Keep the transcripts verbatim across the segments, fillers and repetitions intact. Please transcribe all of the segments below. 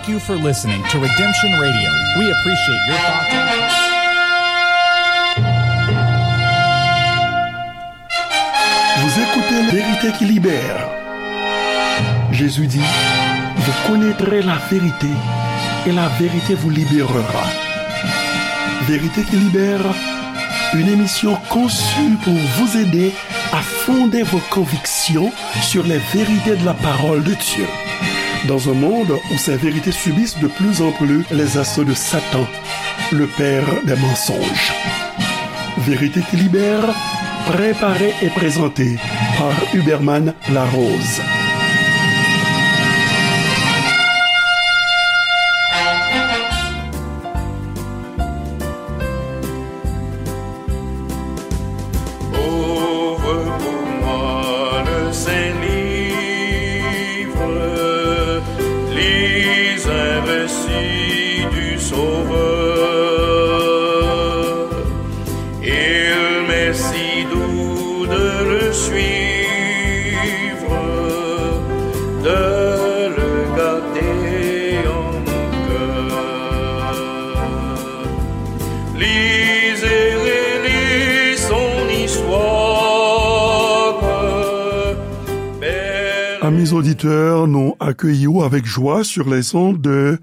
Thank you for listening to Redemption Radio. We appreciate your thoughts. Vous écoutez Vérité qui libère. Jésus dit, vous connaîtrez la vérité et la vérité vous libérera. Vérité qui libère, une émission conçue pour vous aider à fonder vos convictions sur les vérités de la parole de Dieu. Dans un monde où ces vérités subissent de plus en plus les assauts de Satan, le père des mensonges. Vérité qui libère, préparée et présentée par Huberman Larose. Ouvre pour moi le saint livre, lis un récit du Sauveur. Il m'est si doux de le suivre, de le garder en mon cœur. Lisez, relisez son histoire. Amis auditeurs, nou akeyi w avèk jwa sur les ondes de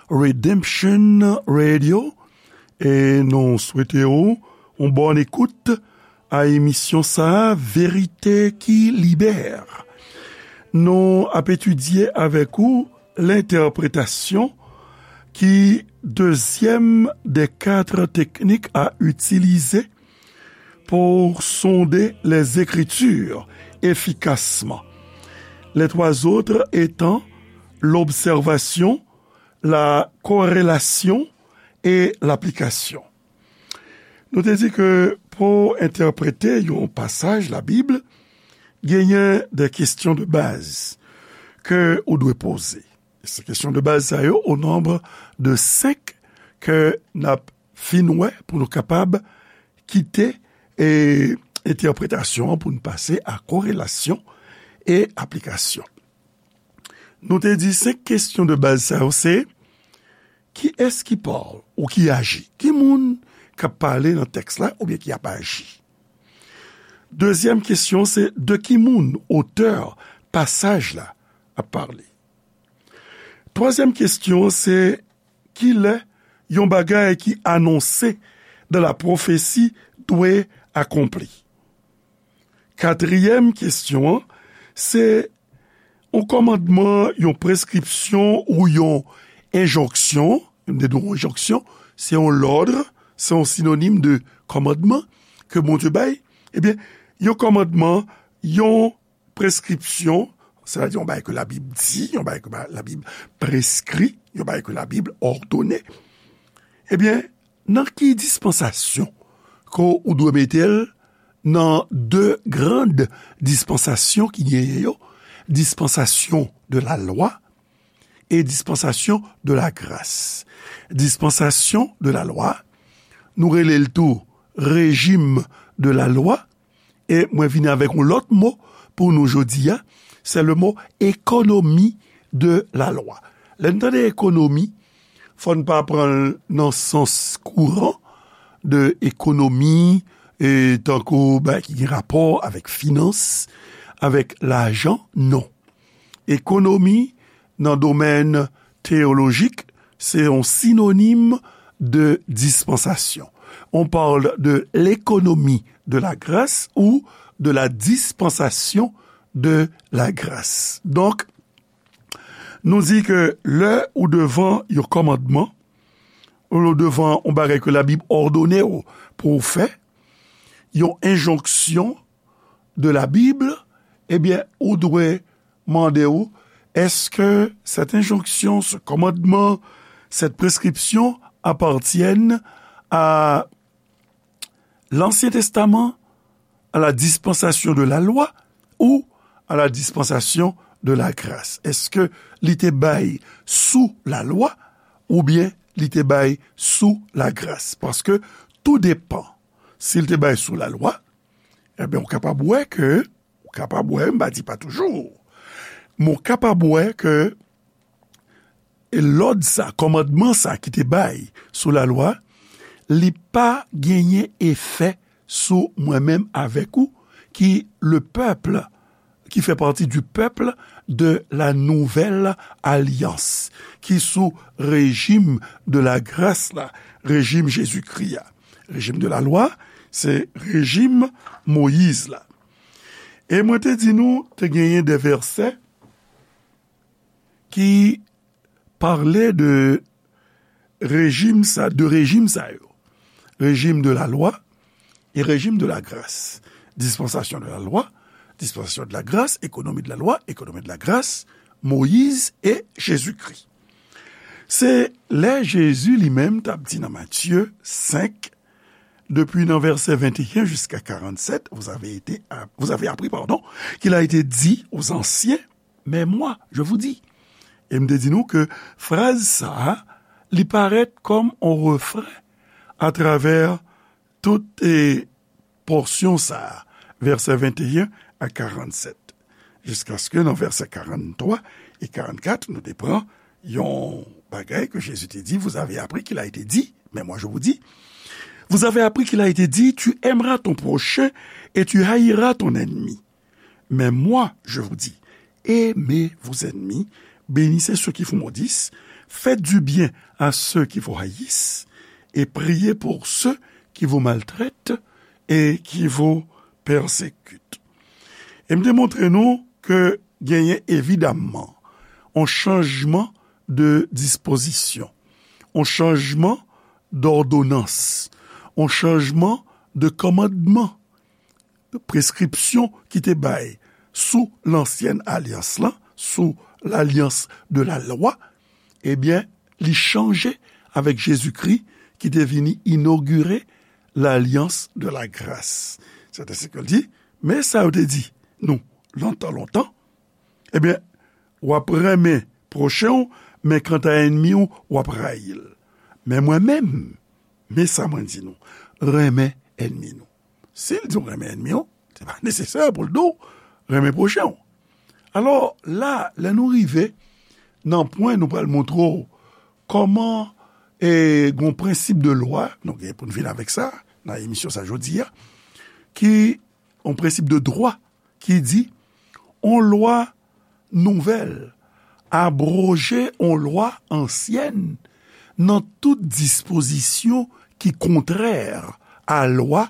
Redemption Radio. E nou swete w yon bòn ekout a emisyon sa a, Verite ki libère. Nou ap etidye avèk ou lentèpretasyon ki dezyèm des quatre techniques à utiliser pour sonder les Écritures efficacement. Les trois autres étant l'observation, la corrélation et l'application. Nou te di ke pou entèprete yon pasaj Labib, genyen de kesyon de baz ke ou dwe poze. Se kesyon de baz sa yo, o nonb de senk ke n ap fin wè pou nou kapab kite, e, entèpretasyon an pou n pase a korelasyon e aplikasyon. Nou te di senk kesyon de baz sa yo se, kiyès ki pale ou ki aji? Ki moun k ap pale nan tèks la oubyen ki ap aji? Dezyèm kesyon se, de ki moun, otè pasaj la, ap pale? Twazyèm kesyon se, kilè yon bagay ki anonse dans la prophétie dwe akonpli? Katriyèm kesyon an, se yon kòmandman, yon preskripsyon ou yon enjonksyon. Yon enjonksyon, se yon lòd, se yon sinonim de kòmandman ke Bondye bay. Ebyen, yon kòmandman, yon preskripsyon, sètadi yon bagay ke Labib di, yon bagay ke ba-, Labib preskri, yon bagay ke Labib òdone. Ebyen, nan ki dispansasyon ke ou dwe mete l nan de grand dispansasyon ki genyen yo, dispansasyon de la lwa e dispansasyon de la gras? Dispansasyon de la lwa, nou rele l tou rejim de la lwa, e mwen vini avèk yon lòt mo pou nou jodi a, se le mo économie de la loi. Lè n tande ekonomi, fò n pa pran l nan sans kouran de ekonomi, e tankou bagay ki gen rapò avèk finans, avèk lajan, non. Ekonomi, nan domèn teyolojik, se yon sinonim de dispansasyon. On parle de l'économie de la grâce ou de la dispensation de la grâce. Donk, nou di ke lè ou devan yon kòmandman, ou devan yon bagay ke Labib òdone w pou w fè, yon enjonksyon de la Bible, ebyen, ou dwe mande w, est-ce que cette injonction, ce commandement, cette prescription appartiennent à l'Ancien Testament, à la dispensation de la loi ou à la dispensation de la grâce? Èske li te bay sou lalwa oubyen li te bay sou lagras? Paske tou depan. Si l te bay sou lalwa, ebyen, ou kapab wè ke, ou kapab wè, m pa di pa toujou, men ou kapab wè ke E lòd sa, kòmandman sa ki te bay sou lalwa, li pa genyen efè sou mwen menm avèk ou, ki le pèp, ki fè pati du pèp de la nouvèl alyans, ki sou rejim de la gras la, rejim Jezikri a. Rejim de lalwa, se rejim Moyiz la. E mwen te di nou, te genyen de vèsè ki pale de rejim sa, de rejim sa yo. Rejim de la lwa e rejim de la gras. Dispansasyon de la lwa, dispansasyon de la gras, ekonomi de la lwa, ekonomi de la gras, Moyiz e Jezikri. Se lè Jezi li menm t ap di nan Matye senk, depi nan vèsè venteyen jiska karannsèt, vous avez été, vous avez appris, pardon, qu'il a été dit aux anciens, mais moi, je vous dis. E m te di nou ke fraz sa a, li parèt kòm on refren atravè tout, e, pòsyon sa a, vèsè venteyen a karannsèt. Jiskaske nan vèsè karanntwa e karannkat, nou te pran yon bagay ke Jezi te di, vous avez appris qu'il a été dit, mais moi je vous dis. Vous avez appris qu'il a été dit, tu aimeras ton prochain et tu haïras ton ennemi. Mais moi, je vous dis, aimez vos ennemis, bénissez ceux qui vous maudissent, faites du bien à ceux qui vous haïssent, et priez pour ceux qui vous maltraitent et qui vous persécutent. E m te montre nou ke genyen evidamman on chanjman de dispozisyon, on chanjman dòdonans, on chanjman de kòmandman, preskripsyon ki te bay sou lansyèn alyans lan, sou lalyans de la lwa, ebyen, li chanje avèk Jezikri ki te vini inogire lalyans de la gras. Sètensèke l di, men sa yo te di nou lontan, lontan, ebyen, w ap renmen pwochen w, men kanta ènmi w, w ap rayi l. Men mwen menm, men sa mwen di nou, renmen ènmi nou. Si l di w renmen ènmi w, se pa nesesè pou l di w renmen pwochen w. Alò, la, lè nou rive nan pwen nou pral montre w kòman, e, gon prensip de lwa, nou gen pou n vin avèk sa nan emisyon sa jodi a, ki, yon prensip de dwa ki di, on lwa nouvèl abwoje on lwa ansyèn nan tout dispozisyon ki kontrè a lwa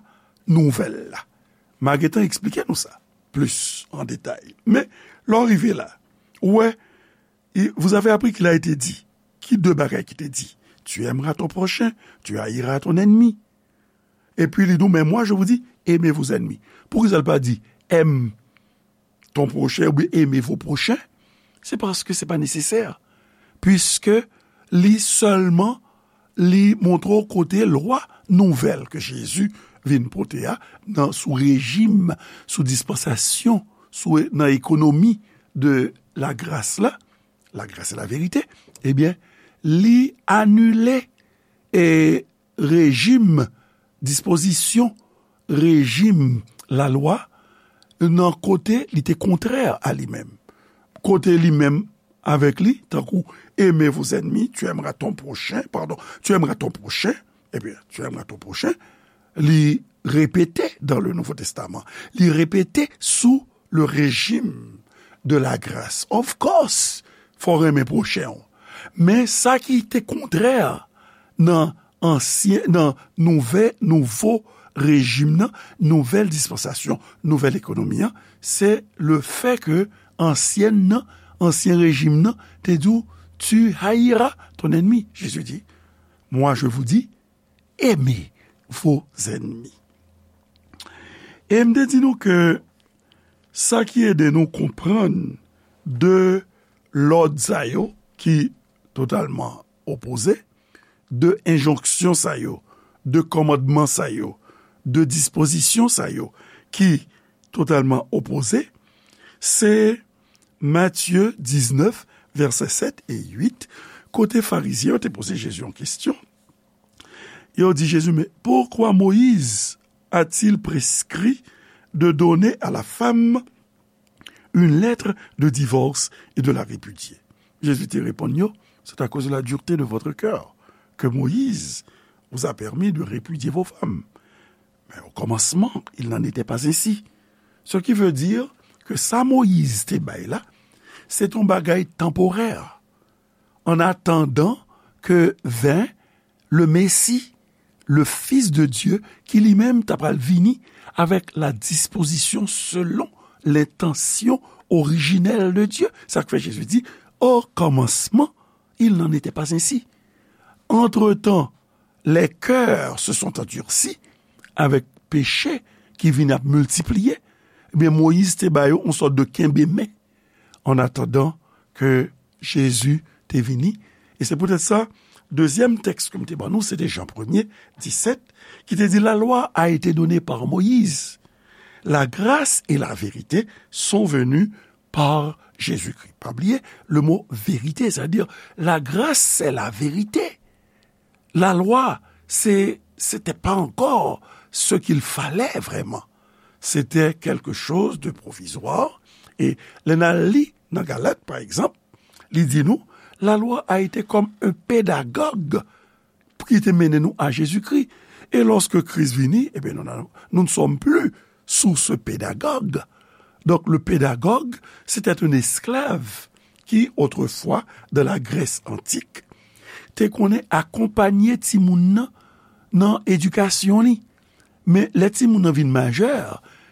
nouvèl la. M a gentan eksplike nou sa plis an detay. Men, lè w rive la, ou wè, i- vous avez appris qu'il a été dit. Ki de bagay ki te di? Tu aimeras ton prochain, tu haïras ton ennemi. Epi li di w, mais moi, je vous dis, aimez vos ennemis. Poukisa l pa di, aime ton prochain oubyen aimez vos prochains? Se paske se pa nesesè. Piske li sèlman, li montre w kote lwa nouvèl ke Jezi vin pote a, nan, sou rejim, sou dispansasyon, sou, nan ekonomi de lagras la, la grâce et la vérité, ebyen, li anile, e, rejim, dispozisyon, rejim lalwa, nan kote li te kontrè a li menm. Kote li menm avèk li, tankou, aimez vos ennemis, tu aimeras ton prochain, pardon, tu aimeras ton prochain, ebyen, tu aimeras ton prochain, li repete dans le Nouveau Testament, li repete sou le régime de la grâce. Of course, fò w renmen pwochen w. Men sa ki te kontrè nan ansyen, nan nouvè, nouvo rejim nan, nouvèl dispansasyon, nouvèl ekonomi an, se le fè ke ansyèn nan, ansyen rejim nan, te di w, tu haïras ton ennemi. Jezi di, moi je vous dis, aimez vos ennemis. E m te di nou ke sa ki ede nou konprann de lòd sa yo ki totalman opoze, de enjonksyon sa yo, de kòmandman sa yo, de dispozisyon sa yo ki totalman opoze, se Matye diznèf, vèsè sèt e uit, kote Farizyen yo te poze Jezi yon kesyon. Yo di Jezi, mais pourquoi Moïse a-t-il prescrit de donner à la femme une lettre de divorce et de la répudier? Jezi te reponn yo, c'est à cause de la dureté de votre cœur que Moïse vous a permis de répudier vos femmes. Mais au commencement, il n'en était pas ainsi. Ce qui veut dire que sa Moyiz te bay la, se t yon bagay tanporè. En attendant que vint le Messie, le Fils de Dieu, ki li menm ta pral vini avec la disposition selon l'intention originelle de Dieu. Sa k fè Jezi di, au commencement, il n'en était pas ainsi. Entre-temps, les cœurs se sont endurcis avec péché ki vin ap miltipliye. Ebyen, Moyiz te ba yo yon sòt de kenbe men en attendant que Jésus te vini. E se poutèt sa, dezyèm tèks ke m te ban nou, se te Jan premye, disèt, ki te di, la loi a été donnée par Moïse, la grâce et la vérité sont venues par Jésus-Christ. Pa bliye, le mot vérité, c'est-à-dire la grâce, c'est la vérité. La loi, c'est, c'était pas encore ce qu'il fallait vraiment. C'était quelque chose de provisoire. E lè n al li nan Galat, pa egzanp, li di nou, la loi a été comme un pédagogue ki te mennen nou a Jezikri. E lorsque Christ vini, eh bien, nous, nous ne sommes plus sous ce pédagogue. Donc, le pédagogue, c'était un esclave qui, autrefois, dans la Grèce antique, te konnen akonpanye timoun nan nan edikasyon li. Men lè timoun nan vin majè,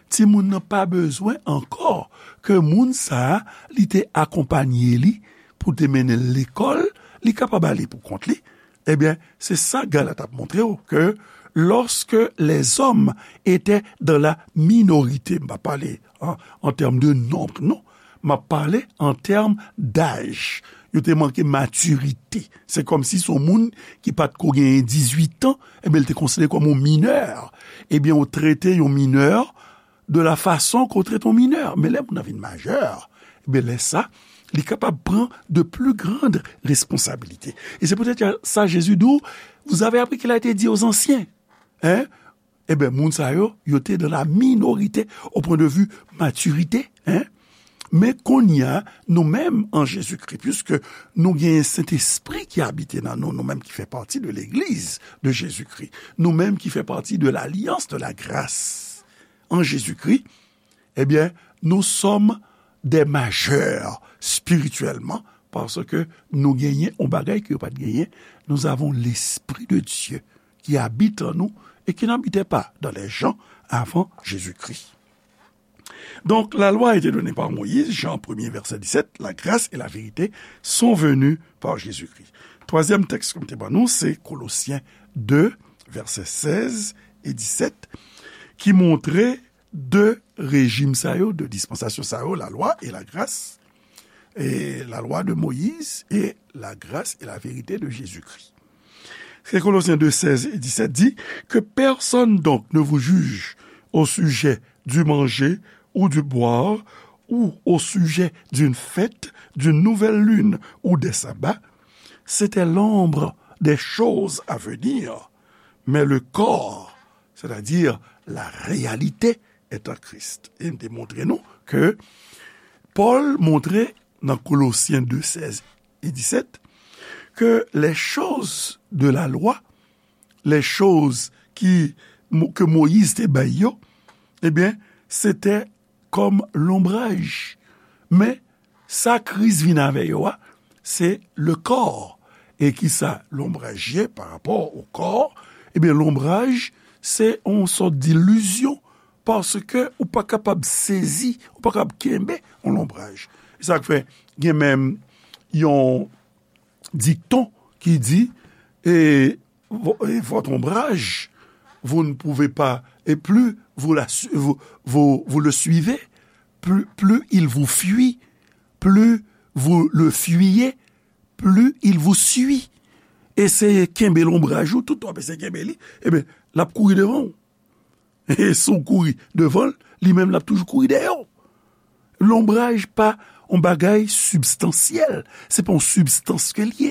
timoun nan pa bezwen ankò ke moun sa a, li te akonpanye li pou te mennen l lekòl, li kapab ale pou kont li. Ebyen, se sa Galat ap montre w, ke lorsque les hommes étaient dans la minorité, m pa pale an, an tèm de nonb, non, m ap pale an tèm daj. Yo te manke matirite. Se kòmsi se yon moun ki pa t ko genyen dizuit an, ebyen, l te konsidere kòm yon minè. Ebyen, ou trete yon minè de la façon qu'on traite un mineur. Men lè moun nan vin majè, ebyen, lè sa, li kapab pran de plus grandes responsabilités. E se poutèt sa Jezi di w, vous avez appris qu'il a été dit aux anciens. Hein? Ebyen, moun sa yo, yo te dans la minorité au point de vue maturité. Hein? Men kounye a, nou menm an Jezikri, puisque nou genyen Sentespri ki abite nan nou, nou menm ki fè pati de legliz de Jezikri, nou menm ki fè pati de l'alyans de la gras an Jezikri, ebyen, nous sommes des majeurs spirituellement, paske nou genyen yon bagay ke yo pa t genyen. Nous avons l'Esprit de Dieu qui habite en nous et qui n'habitait pas dans les gens avant Jésus-Christ. Donc, la loi a été donnée par Moïse, Jean premier, verset dix-sept, la grâce et la vérité sont venues par Jésus-Christ. Twazyèm tèks ke m te ban nou, se Kolosyen de, vèsè sèz e disèt, ki montre de rejim sa yo, de dispansasyon sa yo, la loi et la grâce, et la loi de Moïse et la grâce et la vérité de Jésus-Christ. Kolosyen de, sèz e disèt di, que personne donc ne vous juge au sujet du manger ou du boire, ou au sujet d'une fête, d'une nouvelle lune ou des sabbats. C'était l'ombre des choses à venir, mais le corps, c'est-à-dire la réalité, est en Christ. E m te montre nou ke Pòl montre nan Kolosyen de, sèz e disèt, ke les choses de la loi, les choses ki, ke Moyiz te bay yo, ebyen, se te kòm lonbraj. Men, sa Kris vin avè yo a, se le corps. E ki sa lonbraj ye pa rapò o kò? Ebyen, lonbraj, se yon sòt dilizyon, paske ou pa kapab sezi, ou pa kapab kenbe yon lonbraj. E sa k fè, gen menm yon dikton ki di, e, vo-, e, votre ombrage, vous ne pouvez pas, et plus vous la su-, vous, vous, vous le suivez, plus, plus il vous fuit, plus vous le fuyez, plus il vous suit. Eseye kenbe lonbraj ou, tout w ap eseye kenbe li, ebyen, l ap kouri devan w. E si w kouri devan l, li menm l ap toujou kouri dèyè w. Lonbraj pa yon bagay sibstansyèl, se pa yon sibstans ke l ye.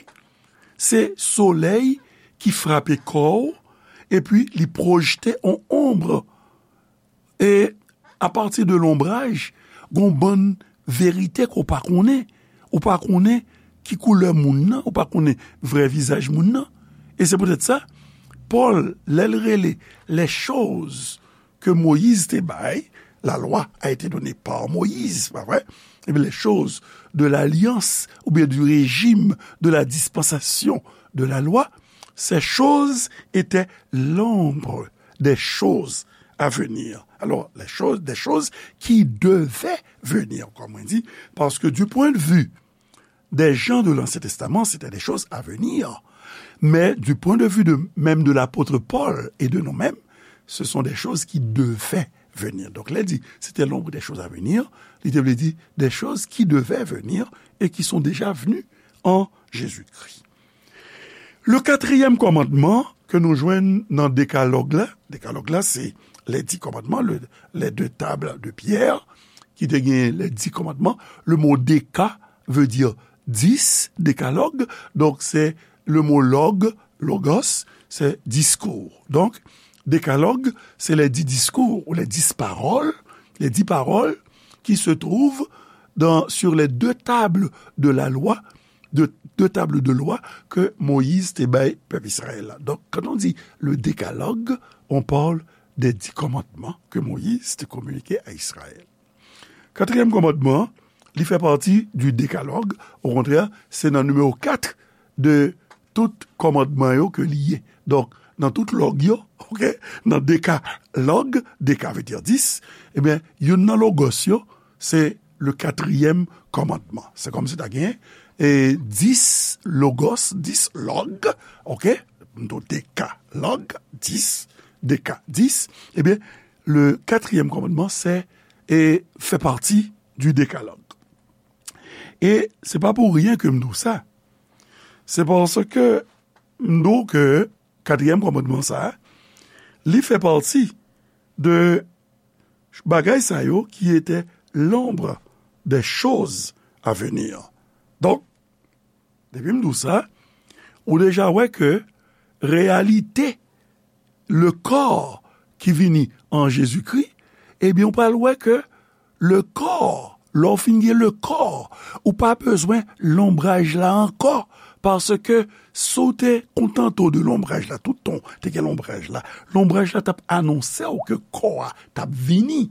Se solèy ki frape kò w, epi li pwojte yon onb. E apati de lonbraj, gon bann verite ke w pa konnen. Ou pa konnen ki koulè moun nan, ou pa konnen vrè vizaj moun nan. E se poutèt sa, Pòl, lè l rele les choses que Moïse te bay, la loi a été donnée par Moïse, pa vre? Ebyen, les choses de l'alliance, oubyen du régime de la dispensation de la loi, ces choses étaient l'ombre des choses à venir. Alors, les choses, des choses qui devaient venir, comme on dit, parce que du point de vue des gens de l'Ancien Testament, c'était des choses à venir. Mais du point de vue de, même de l'apôtre Paul et de nous-mêmes, ce sont des choses qui devaient venir. Donk, lè di, c'était l'ombre des choses à venir, li te vle di des choses qui devaient venir et qui sont déjà venues en Jésus-Christ. Le quatrième commandement ke nou jwenn nan Dekalòg la, Dekalòg la, se les dix commandements, le, les deux tables de pierre, ki te gen les dix commandements. Le mot deka veut dire dix, décalogue, donc c'est le mot log, logos, c'est discours. Donc, décalogue, c'est les dix discours ou les dix paroles, les dix paroles qui se trouvent dans, sur les deux tables de la loi, de, deux tables de loi que Moïse te bay pèp Israël la. Donc, quand on dit le décalogue, on parle des dix commandements que Moïse te communiqué à Israël. Katriyèm kòmandman, li fè pati du décalogue. Okontrè, se nan nimewo kat de tout kòmandman yo ke li ye. Donk, nan tout lòg yo, oke, nan dekalòg, deka vle di dis, ebyen, youn nan logos yo, se le katriyèm kòmandman. Se kòmsi ta gen, e, dis logos, dis lòg, oke, nou dekalòg, dis, deka, dis, ebyen, le katriyèm kòmandman, se, e, fè pati du décalogue. E se pa pou ryen ke m di w sa. Se paske m di w ke katriyèm kòmandman sa a, li fè pati de bagay sa yo ki ete l'ombre des choses à venir. Donk, depi m di w sa, ou deja wè ke reyalite le kò ki vini an Jezikri, ebyen, ou pral wè ke le kò, lè w fin gen le kò, ou pa bezwen lonbraj la ankò, paske si w te kontante w de lonbraj la, tout tan w te gen lonbraj la, lonbraj la t ap anonse w ke kò a t ap vini.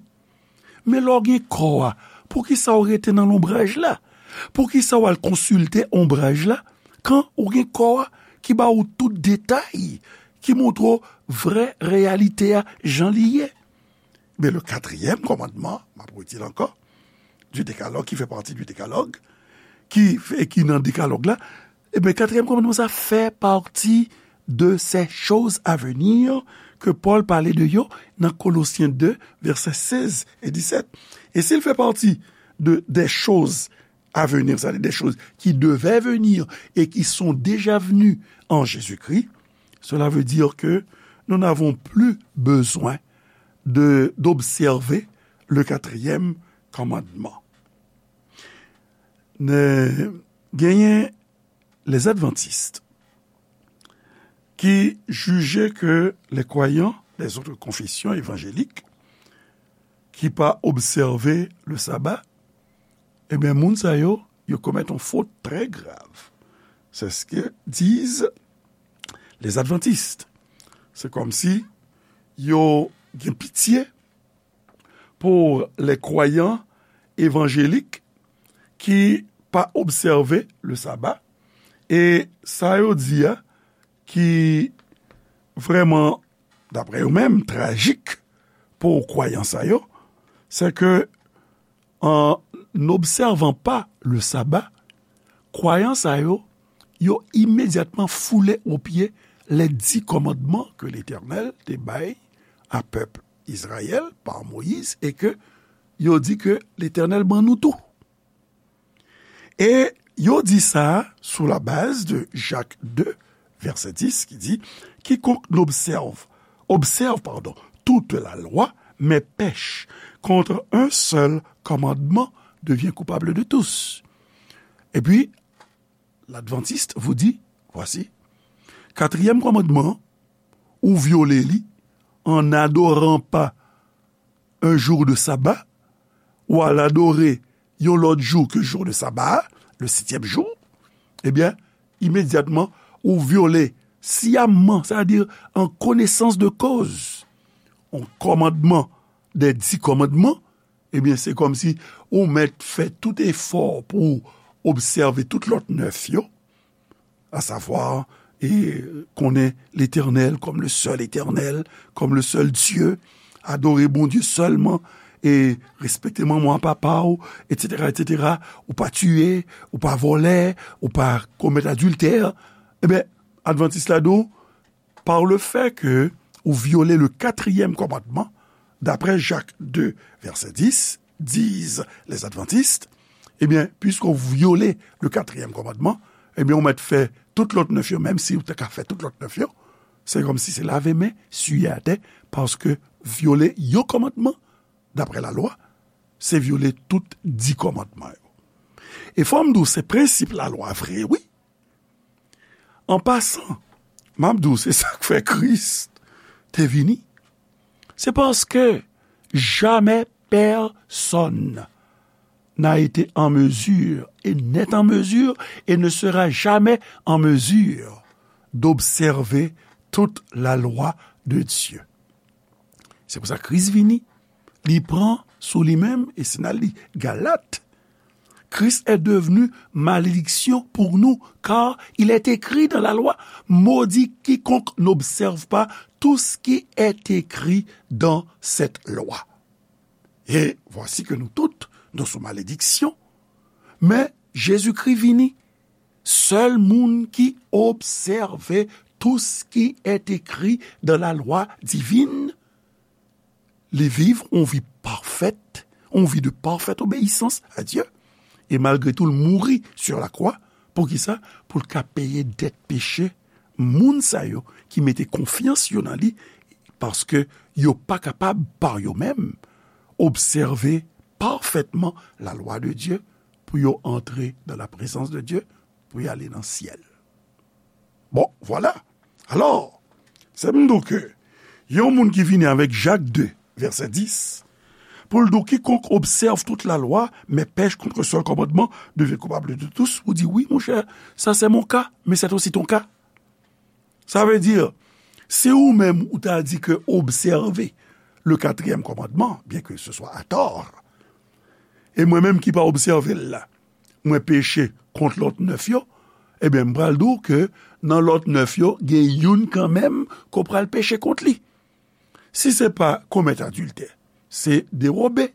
Men lè w gen kò a, poukisa w rete nan lonbraj la? Poukisa w al konsilte onbraj la, kan ou gen kò a ki ba w tout detay, ki montre w vrè reyalite a jan li ye? Men le katriyèm kòmandman, m ap redi l ankò, du décalogue, ki fè pati du décalogue, ki, e ki nan dekalòg la, ebyen, katriyèm kòmandman sa fè pati de ces choses à venir ke Pòl pale de yo nan Kolosyen de, vèsè sèz e disèt. E si l fè pati de des choses à venir, c'est-à-dire des choses qui devaient venir et qui sont déjà venues en Jésus-Christ, cela veut dire que nous n'avons plus besoin de, d'observer le quatrième commandement. Ne, genyen les adventistes qui jugeaient que les croyants des autres confessions évangéliques qui pa observer le sabbat, ebyen, moun sa yo, yo komèt yon fot trè grav. C'est ce que disent les adventistes. Se kòmsi yo gen pitye pou les croyants évangéliques ki pa obsève le sabbat. E sa yo di a, ki vrèman, daprè yo menm, trajik pou kwayan sa yo, c'est que en n'observant pas le sabbat, kwayan sa yo, yo imedyatman foule o pye les dix commandements que l'Éternel te bay a pèp Izrayèl pa Moyiz, e ke yo di ke Letènèl ban nou tou. E yo di sa sou la baz de Jak de, vèsè dis, ki di, quiconque n'observe, observe, pardon, toute la loi, mais pèche contre un seul commandement devient coupable de tous. Et puis, l'adventiste vous dit, voici, quatrième commandement, ou vyole li en n'adorant pas un jour de sabbat, ou al adore yon lòt jou ke jou de sabbat, le septième jour, Ebyen, imedyatman, ou vyole siyamman, sètadi an konesans de koz, yon kòmandman dè di kòmandman, ebyen, se kòmsi ou mèt fè tout efò pou w obsève tout lòt nèf yo, asavwa, e konnen Letènèl kòm le sèl Etènèl, kòm le sèl Dye, adore Bondye sèlman, e respekte manman w, papa w, etsetera, etsetera. Ou pa tiye, ou pa vòlè, ou pa komèt adiltè. Ebyen, Advantis la di w, par le fait que ou vyole le katriyèm kòmandman, d'après Jacques deux, verset dix, disent les adventistes, ebyen, puisque ou vyole le katriyèm kòmandman, ebyen, ou mèt fè tout lòt nèf yo, menm si ou te ka fè tout lòt nèf yo, se kòmsi se lave men, siye atè, paske vyole yon kòmandman, daprè lalwa, se vyole tout di kòmandman yo. E fò m di w, se prensip lalwa vre, wi. An pasan, m ap di w, se sa k fè Kris te vini. Se paske jamais personne n'a été en mesure et n'est en mesure et ne sera jamais en mesure d'observer toute la loi de Dieu. Se pou sa Kris vini. Li pran sou li menm, e si n al li Galat, Christ est devenu malédiction pour nous, car il est écrit dans la loi, maudit quiconque n'observe pas tout ce qui est écrit dans cette loi. Et voici que nous toutes, nous sommes sous malédiction. Men Jezikri vini, sèl moun ki obsève tout ce qui est écrit dans la loi divine, li viv yon vi pafèt, yon vi de parfaite obéissance à Dieu. E malgre tou, l mouri sur la croix. Poukisa? Pou l ka peye dèt peche moun sa yo ki mete konfyans yo nan li, paske yo pa kapab, pa yo menm, obsève pafètman la lwa de Dye pou yo antre dans la présence de Dieu, pou y ale nan syèl. Bon, vwala. Alò, se m di w ke yon moun ki vini avèk Jak de, vèsè dis, pou l di w, quiconque observe toute la loi, mais pèche contre le seul commandement devient coupable de tous, ou di, wi, monchè, ça c'est mon cas, mais c'est aussi ton cas. Ça veut dire, si ou menm ou ta di ke obsève le quatrième commandement, bien que ce soit à tort, e mwen menm ki pa obsève l la, mwen peche kont lòt nèf yo, ebyen, m pral di w ke nan lòt nèf yo, gen youn kanmenm ke w pral peche kont li. Si se pa komèt adiltè, se dewobe.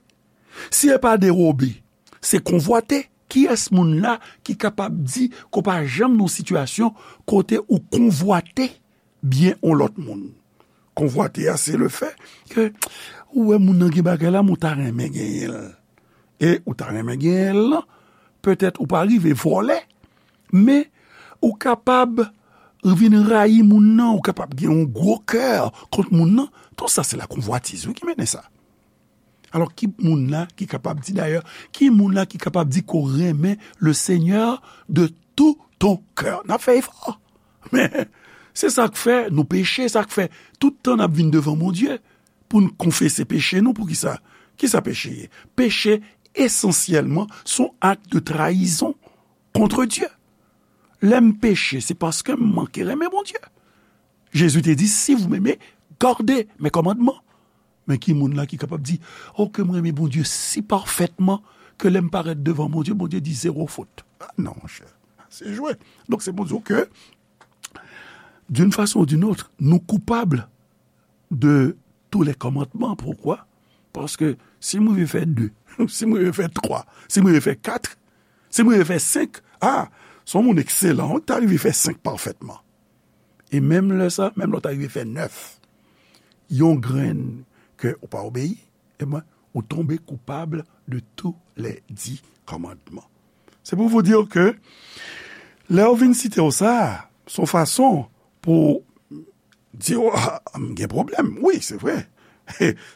Si se pa dewobe, se konvwate. Kiyès moun la ki kapab di ke w pa janm nan yon sitiyasyon kote ou konvwate byen yon lòt moun? Konvwate a, se le fè ke ou wè moun nan gen bagay la, men w ta renmen genyen l. E ou ta renmen genyen l lan, petèt ou pa rive vòlè, men ou kapab vin rayi moun nan, ou kapab gen yon gwo kè kont moun nan. Tout sa, se la konvwatiz, wi, ki mennen sa. Alò, ki moun la ki kapab di, dayè, ki moun la ki kapab di ke w renmen le Seigneur de tout ton cœur? N ap fè efò. Men, se sa k fè nou peche, sa k fè tout tan n ap vin devan Bondye pou n konfese peche nou. Poukisa? Kisa peche ye? Peche, esansyèlman, se yon ak de trayizon contre Dieu. Lè m peche, se paske m manke renmen Bondye. Jezi te di, si vous m'aimez, gardez mes commandements. Men ki moun la ki kapab di, o, ke m renmen Bondye si pafètman ke lè m parèt devan Bondye, Bondye di zewo fot? Ah, non, monchè, se jwe. Donk, se pou di w ke, d'une façon ou d'une autre, nou koupab de tous les commandements. Poukwa? Paske si m rive fè de, si m rive fè twa, si m rive fè kat, si m rive fè senk, a, se yon moun ekselan, ou ta rive fè senk pafètman. E menm lè sa, menm lè w ta rive fè nèf, yon grenn ke ou pa obeyi, ebyen, ou tonbe koupab de tous les dix commandements. C'est pour vous dire que lè yo vin site w sa, se yon fason pou di w, a, m gen pwoblèm. Wi, se vre.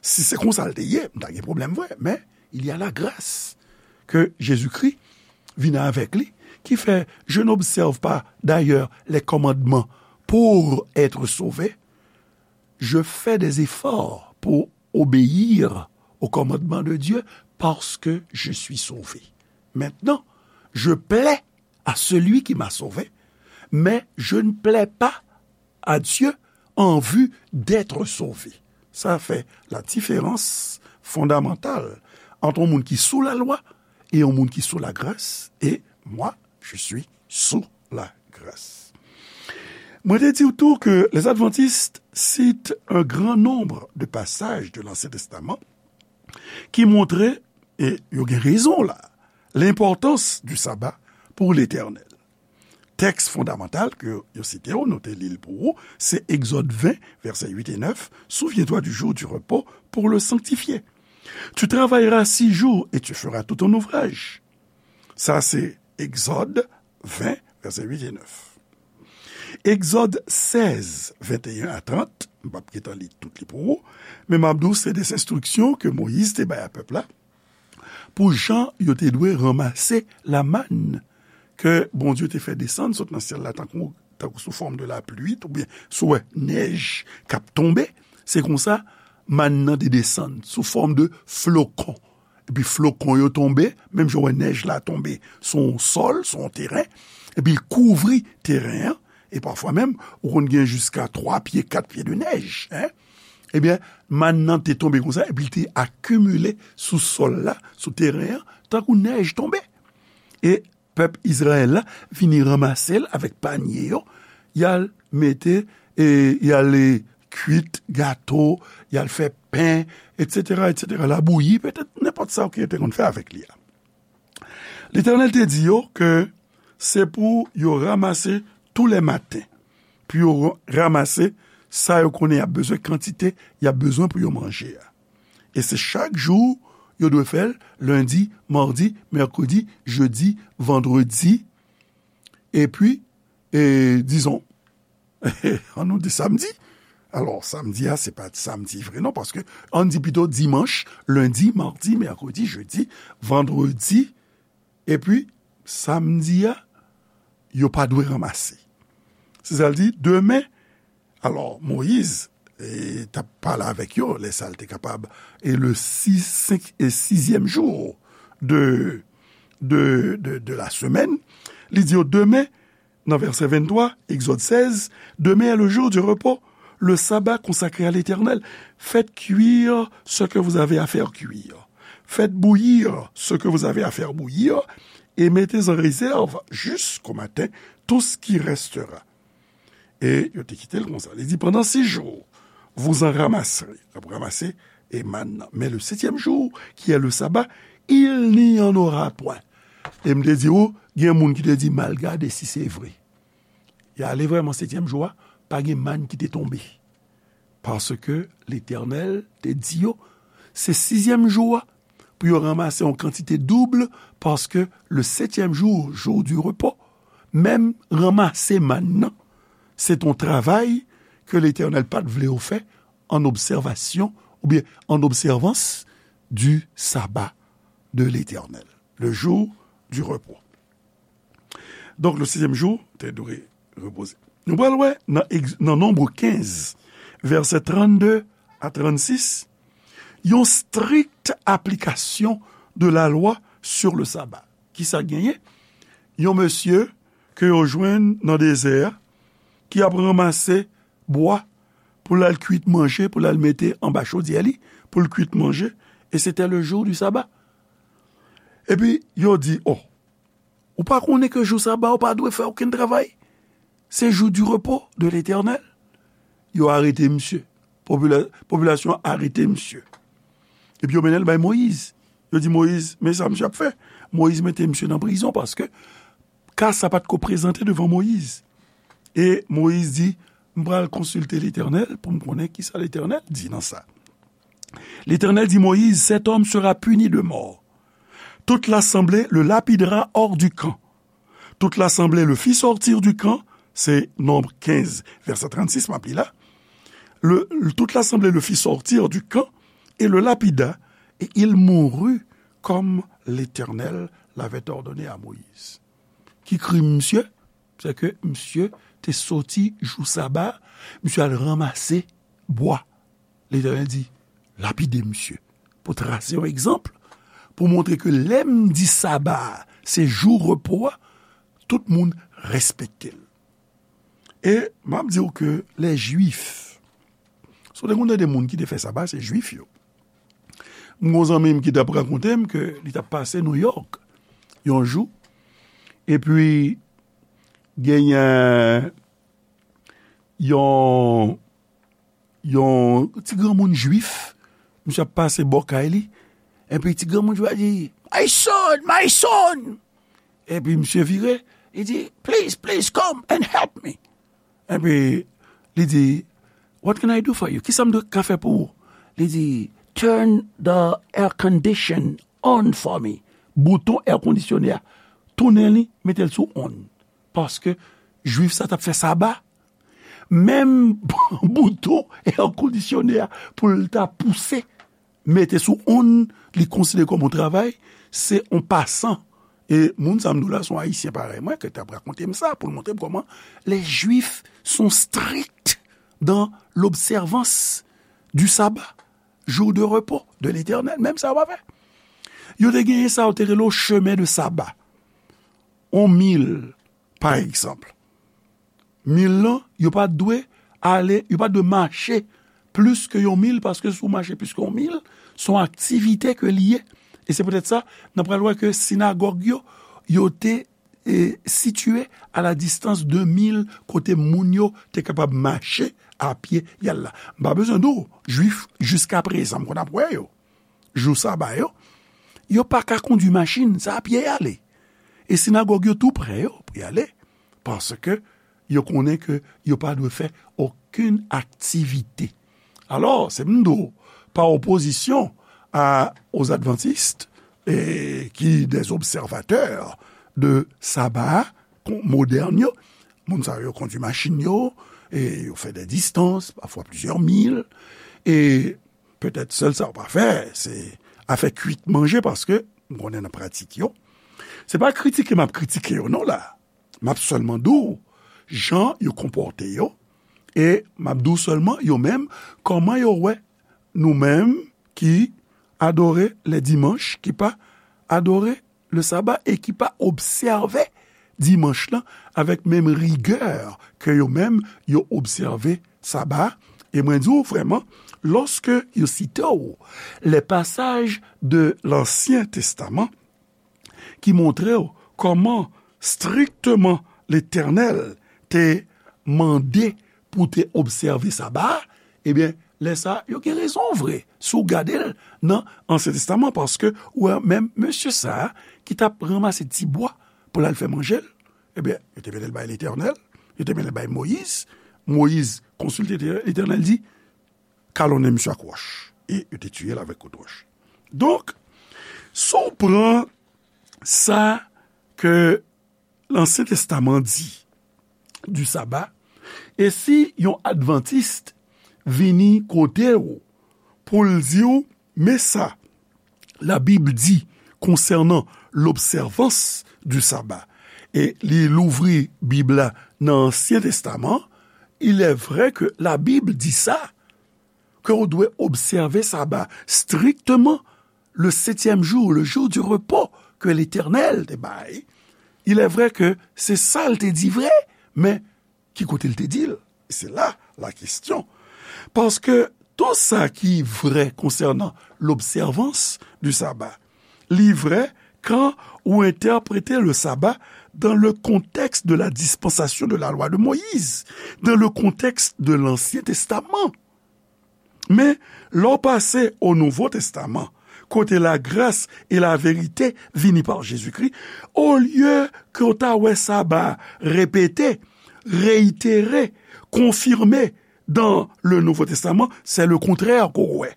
Si se konsa l te ye, m ta gen pwoblèm vre. Men, il y a la grâce que Jésus-Christ vin avèk li, ki fè, je n'observe pas d'ailleurs les commandements pour être sauvé. Je fais des efforts pour obéir aux commandements de Dieu parce que je suis sauvé. Maintenant, je plais à celui qui m'a sauvé, mais je ne plais pas à Dieu en vue d'être sauvé. Ça fait la différence fondamentale entre un monde qui est sous la loi et un monde qui est sous la grâce. Et moi, je suis sous la grâce. Mwen te di w tou ke les adventistes citent un grand nombre de passages de l'Ancien Testament ki montre, e yo gen rezon la, lenpòtans du sabbat pour l'Éternel. Tèks fondamantal ke yo site w, nou te li l pou ou, se Egzòd ven, vèsè uit e nèf, Souviens-toi du jour du repos pour le sanctifier. Tu travailleras six jours et tu feras tout ton ouvrage. Sa se Egzòd ven, vèsè uit e nèf. Egzòd sèz, venteyen a trant, m p ap gentan li tout li pou ou, men m ap di w se de enstriksyon ke Moyiz te bay a pèp la, pou jan yo te dwe ranmase lamann ke Bondye te fè desann sot nan syèl la tankou, tankou sou fòm de lapli, oubyen sou wè nèj k ap tonbe, se konsa mann nan te desann sou fòm de flokon. Epi flokon yo tonbe, menm jan w wè nèj la tonbe sou yon sòl, sou yon teren, epi l kouvri teren an, e pafwa menm, ou konn gen jiska twa pye, kat pye de nèj, en. Ebyen, mann nan te tonbe konsa, epi l te akimile sou sòl la, sou teren an, tankou nèj tonbe. E pèp Izrayèl la vini ranmase l avèk panye yo, y al mete, e y al, e, kwit gato, y al fè pen, etsetera, etsetera. L a bouyi, petèt nenpòt sa ke yo te konn fè avèk li a. Letènèl te di yo ke se pou yo ranmase tou lè maten, pou yo ranmase sa yo konnen y ap bezwen, kantite y ap bezwen pou yo manje a. E se chak jou yo dwe fè l, lendi, madi, mèkredi, jedi, vandredi, epi, e, dizon, an nou di samdi. Alò, samdi a, se pa samdi vre non, paske ann di pito dimanch, lendi, madi, mèkredi, jedi, vandredi, epi samdi a, yo pa dwe ranmase. Se sa l di, demen, alò, Moyiz, e, t ap pale avèk yo, lè sa l te kapab, e le sis, senk, e sizyèm jou de, de, de, de la semaine, li di yo, demen, nan vèsè venntwa, Egzòd sèz, demain est le jour du repos, le sabbat consacré à l'Éternel. Faites cuire ce que vous avez à faire cuire. Faites bouillir ce que vous avez à faire bouillir, et mettez en réserve jusqu'au matin tout ce qui restera. E yo te kite l konsa. Li di, pendant six jours, vous en ramasserez. Ap ranmase e mann nan. Mais le septième jour, qui est le sabbat, il n'y en aura point. E m te di ou, gen moun ki te di, m al gade si se vre. Y ale vrèman setyèm jou a, pa gen mann ki te tonbe. Paske Letènèl te di yo, se sizyèm jou a, pou yo ranmase yon kantite doub, paske le septième jour, jour du repos, menm ranmase mann nan, se t on travay ke Letènèl pa t vle yo fè an obsèvasyon, oubyen an obsèvans du sabbat de l'Éternel, le jour du repos. Donk, le sizyèm jou, te dwe repoze. Nou pral wè nan Egz-, nan Nonb kenz, vèsè trannde a trannsis, yon strik aplikasyon de la lwa sur le sabbat. Kisa k genyen? Yon mesye ke yo jwenn nan dezè a, ki ap ranmase bwa pou l al kwit manje, pou l al mete anba chodyè li, pou l kwit manje, et c'était le jour du sabbat. Epi, yo di, oh, ou pa konnen ke jou saba ou pa dwe fè okenn travay? Se jou du repos de l'Éternel. Yo arete misye. Popila-, popilasyon an arete misye. Epi yo mennen l bay Moyiz. Yo di Moyiz, men sa misye ap fè. Moyiz mete misye nan prizon paske ka sa pa t ko prezante devan Moyiz. E Moyiz di, m pral konsilte Letènèl pou m konnen kisa Letènèl di nan sa. L'Éternel dit, Moïse, cet homme sera puni de mort. Toute l'assemblée le lapidera hors du camp. Toute l'assemblée le fit sortir du camp, se Nonb kenz, vèsè trannsis, m ap li la. Le, toute l'assemblée le fit sortir du camp et le lapida, et il mourut comme l'Éternel l'avait ordonné à Moïse. Ki krim misye? Se ke misye te soti jou saba, misye al ranmase bwa. Letènèl di, lapide misye. Pou trase yon egzanp, pou montre ke lè m di saba a, se jou repo a, tout moun respekte l. E m ap di w ke lè Jwif, si w te konn tande moun ki te fè saba, se Jwif yo. M gon zanmi m ki t ap rakonte m ke li t ap pase Nouyòk yon jou, epi genyen yon, yon ti granmoun Jwif, misye ap pase bò kay li, epi ti granmoun Jwif la di, "My son, my son!" Epi misye vire, li di, "Please, please come and help me." Epi li di, "What can I do for you? Kisa m dwe ka fè pou ou?" Li di, "Turn the air condition on for me." Bouton air conditionné a, tounen li, mete l sou on. Paske Jwif sa t ap fè saba. Menm bouton air conditionné a, pou l ta pouse, mete sou on, li konsidere kòm yon travay, se yon pasan. E moun sa m di w la, se yon Ayisyen parèy mwen, ki t ap rakonte m sa, pou l montre m kòman les Juifs sont stricts dans l'observance du sabbat, jour de repos de l'Éternel. Menm sa yo pa fè. Yo te genyen sa, yo te rele yo chemin de sabbat. Yon mil, pa egzanp. Mil lan, yo pa dwe ale, yo pa dwe mache plis ke yon mil, paske si w mache plis ke yon mil, se yon aktivite ke li ye. E se poutèt sa, n ap pral wè ke sinagòg yo, yo te, e, sitiye a la distans de mil, kote moun yo te kapab mache a pye y al la. M pa bezwen di w, Jwif, jiskaprezan, m konn ap wè yo. Jou saba yo, yo pa ka kondui machin, se a pye y ale. E sinagòg yo tou prè yo pou y ale, paske yo konnen ke yo pa dwe fè okenn aktivite. Alò, se m di w, pa opozisyon a, aux adventistes, e, ki des observateurs de saba kon-, modèn yo, moun sa yo kondui machin yo, e yo fè de distans, pafwa plizyè mil, e petèt sèl sa yo pa fè, se afè kuit manje, paske m konnen nan pratik yo. Se pa kritike m ap kritike yo non la. M ap sèlman di w jan yo konpòte yo, e m ap di w sèlman yo menm, kòman yo wè nou menm ki adore le dimanche, ki pa adore le sabbat e ki pa obsève dimanch lan avèk menm rigè ke yo menm yo obsève saba. E mwen di w vrèman, lòske yo site w les passages de l'Ancien Testament ki montre w kòman strikteman Letènèl te mande pou te obsève saba a, ebyen, lè sa a, yo gen rezon vre, si w gade l nan Ansyen Testaman, paske ou wè menm mesye sa a ki t ap ranmase ti bwa pou l al fè manje l, ebyen, yo te mete l bay Letènèl, yo te mete l bay Moyiz. Moyiz konsilte Letènèl, Letènèl di, "Kalonnen misye ak wòch." E yo te tiye l avèk kout wòch. Donk, si w pran sa ke Lansyen Testaman di du sabbat, e si yon advantis vini kote w pou l di w, men sa Labib di konsènan l'observance du sabbat, e li louvri Bib la nan Ansyen Testaman, il est vrai que la Bible dit ça, que w dwe obsève saba strikteman le septième jour, le jour du repos que l'Éternel te bay. Il est vrai que se sa l te di vre, men ki kote l te di l? Se la la kesyon. Paske tout sa ki vre konsènan l'observance du sabbat, li vre kan ou entèprete le sabbat dans le contexte de la dispensation de la loi de Moïse, dans le contexte de l'Ancien Testament. Men, lè w pase o Nouvo Testaman, kote la grâce et la vérité vini pa Jezikri, olye ke w ta wè saba repete, reyitere, konfime dans le Nouveau Testament, c'est le contraire ke w wè.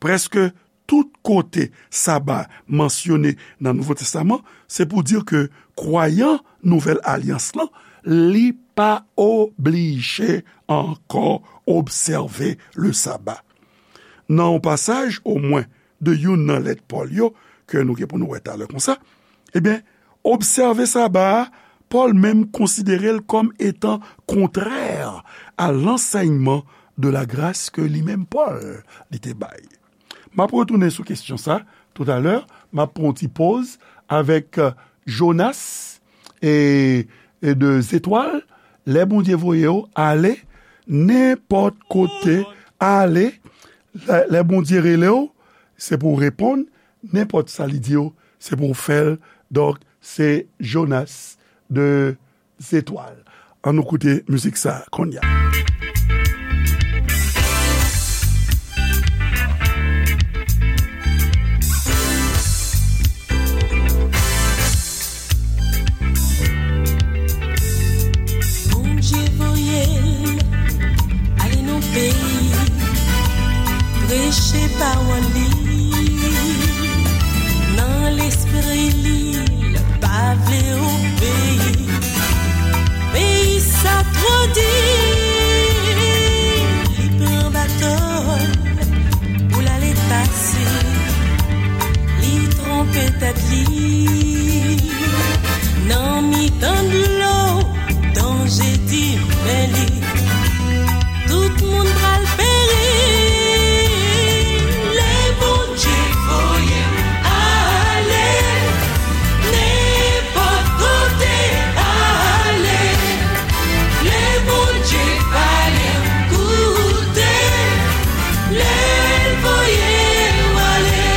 Prèske tout kote saba mansyone nan Nouvo Testaman, se pou di ke kwayan Nouvèl Alyans lan, li pa oblije ankò obsève le sabbat. Nan yon pasaj, omwen, de youn nan lèt Pòl yo, ke nou gen pou nou wè talè konsa, ebyen, obsève saba a, Pòl menm konsidere l kòm etan kontrè a lansèyman de la grâce ke li menm Pòl li te bay. M ap retounen sou kesyon sa toutalè, m ap pran yon ti poz avèk, euh, Jonas, e, e de zetwal, lè Bondye voye w, ale, nenpòt kote, ale, lè, lè Bondye rele w, se pou w reponn, nenpòt sa li di w, se pou w fè l. Donk, se Jonas de zetwal. Ann nou koute mizik sa a kounye a. Bondye voye l ale nan peyi, preche pawòl li. Nan lespri li, l pa vle obeyi. Peyi sa twò di, li pran bato l pou l ale pase. Li twonpe tèt li nan mitan dlo, danje di men li. Tout moun pral peri lè Bondye voye m ale. Nenpòt kote ale, lè Bondye pale m koute, lè l voye w ale.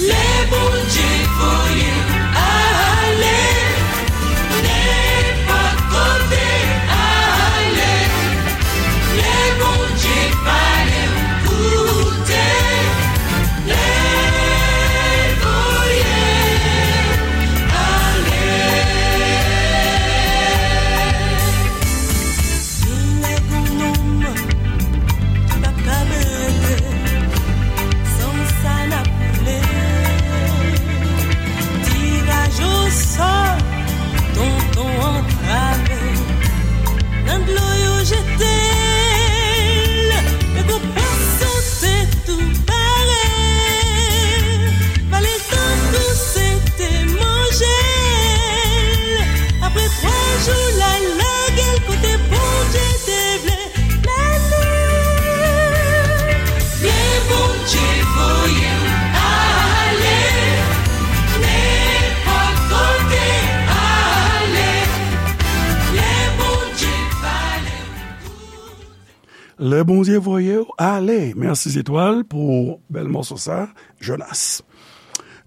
Lè Bondye voye m ale, nenpòt kote ale, lè Bondye pale m koute, lè l voye m ale. Genlè gon nonm ki p ap ka rete, san sa n ap koule. Tiraj osò, tonton antrave, nan dlo yo jete l, men gon pwason te tou pare, vale l tankou se te manje l. Apre twa jou, l al lage l kote Bondye te vle l ale. Lè Bondye voye m ale, nenpòt kote ale, lè Bondye pale m koute. Lè Bondye voye w ale. Mèsi Zetwal pou bèl mòso sa, Jonas.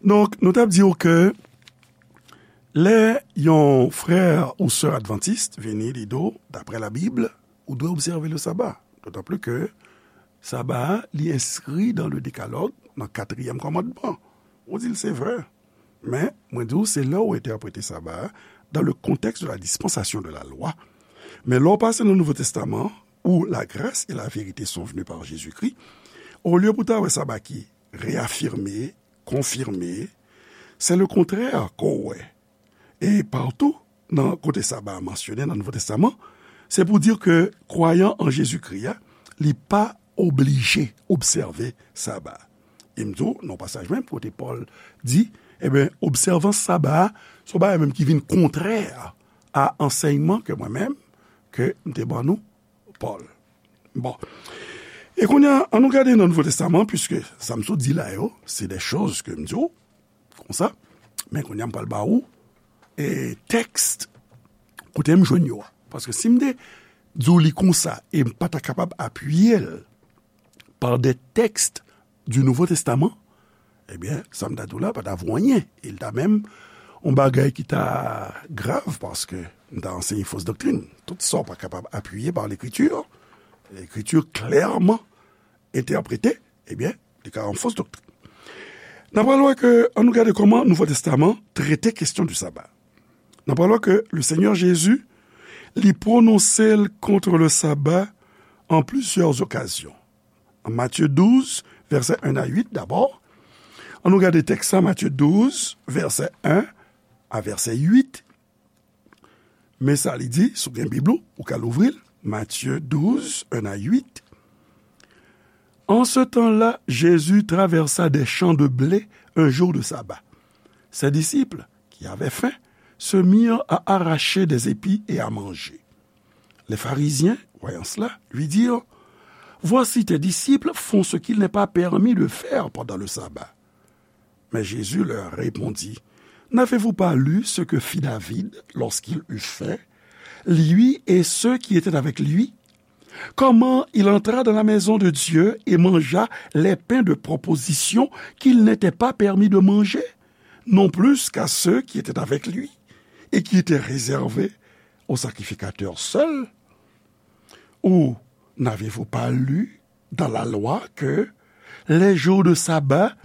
Donk, nou t ap di w ke lè yon frè ou sè advantis vini, li di w, daprè Labib, ou dwe obsève le saba. Dotan pli ke saba a, li enskri dan le Dekalòg, nan katriyèm kòmandman. Ou di l se vre. Men, mwen di w, se lè w entèprete saba a dans le contexte de la dispensation de la loi. Men lè w pase nan Nouvo Testaman, où la grâce et la vérité sont venues par Jésus-Christ, olye pou w ta wè saba ki reyafime, konfime, se le kontrè ke w wè. E patou, nan kote saba a mansyone nan Nouvo Testaman, se pou di ke kwayan an Jezikri a, li pa oblije obsève saba a. E m di w, nan pasaj menm kote Pòl di, ebyen, obsèvans saba a, se yon bagay menm ki vin kontrè a ansèyman ke mwen menm, ke m te ban nou, Pòl. Bon. E kounye a, ann nou gade nan Nouvo Testaman, piske sa m sot di la yo, se de choz ke m di w, konsa. Men kounye a, m pral ba ou, e, tèks kote m jwenn yo a. Paske si m te di w li konsa, e m pa ta kapab apiye l par des textes du Nouveau Testament, ebyen, sa m ta di w la pa ta vo anyen. E l ta menm yon bagay ki ta grav, paske m ta anseye fos doktrin. Tout sa w pa kapab apiye par Lekritir, Lekritir klèman entèprete, ebyen, li ka yon fos doktrin. N a pral wè ke, ann nou gade kòman Nouvo Testaman trete kesyon di saba. N a pral wè ke le Seigneur Jésus, li pwononse l kont le saba an plizyè okazyon. An Matye douz, vèsè en a uit dabò. Ann nou gade tèks la, Matye douz, vèsè en a vèsè uit. Men sa li di, si w gen Bib ou, ou ka louvri l. Matye douz, en a uit. En ce temps-là, Jésus traversa des champs de blé un jour de sabbat. Ses disciples, qui avaient faim, se mirent à arracher des épis et à manger. Les pharisiens, voyant cela, lui dirent : « Voici, tes disciples font ce qu'il n'est pas permis de faire pendant le sabbat. » Mais Jésus leur répondit : N'avez-vous pas lu ce que fit David lorsqu'il eut faim, lui et ceux qui étaient avec lui? Comment il entra dans la maison de Dieu et mangea les pains de proposition qu'il n'était pas permis de manger, non plus qu'à ceux qui étaient avec lui, et qui étaient réservés au sacrificateur seul? Ou n'avez-vous pas lu dans la loi que les jours de sabbat,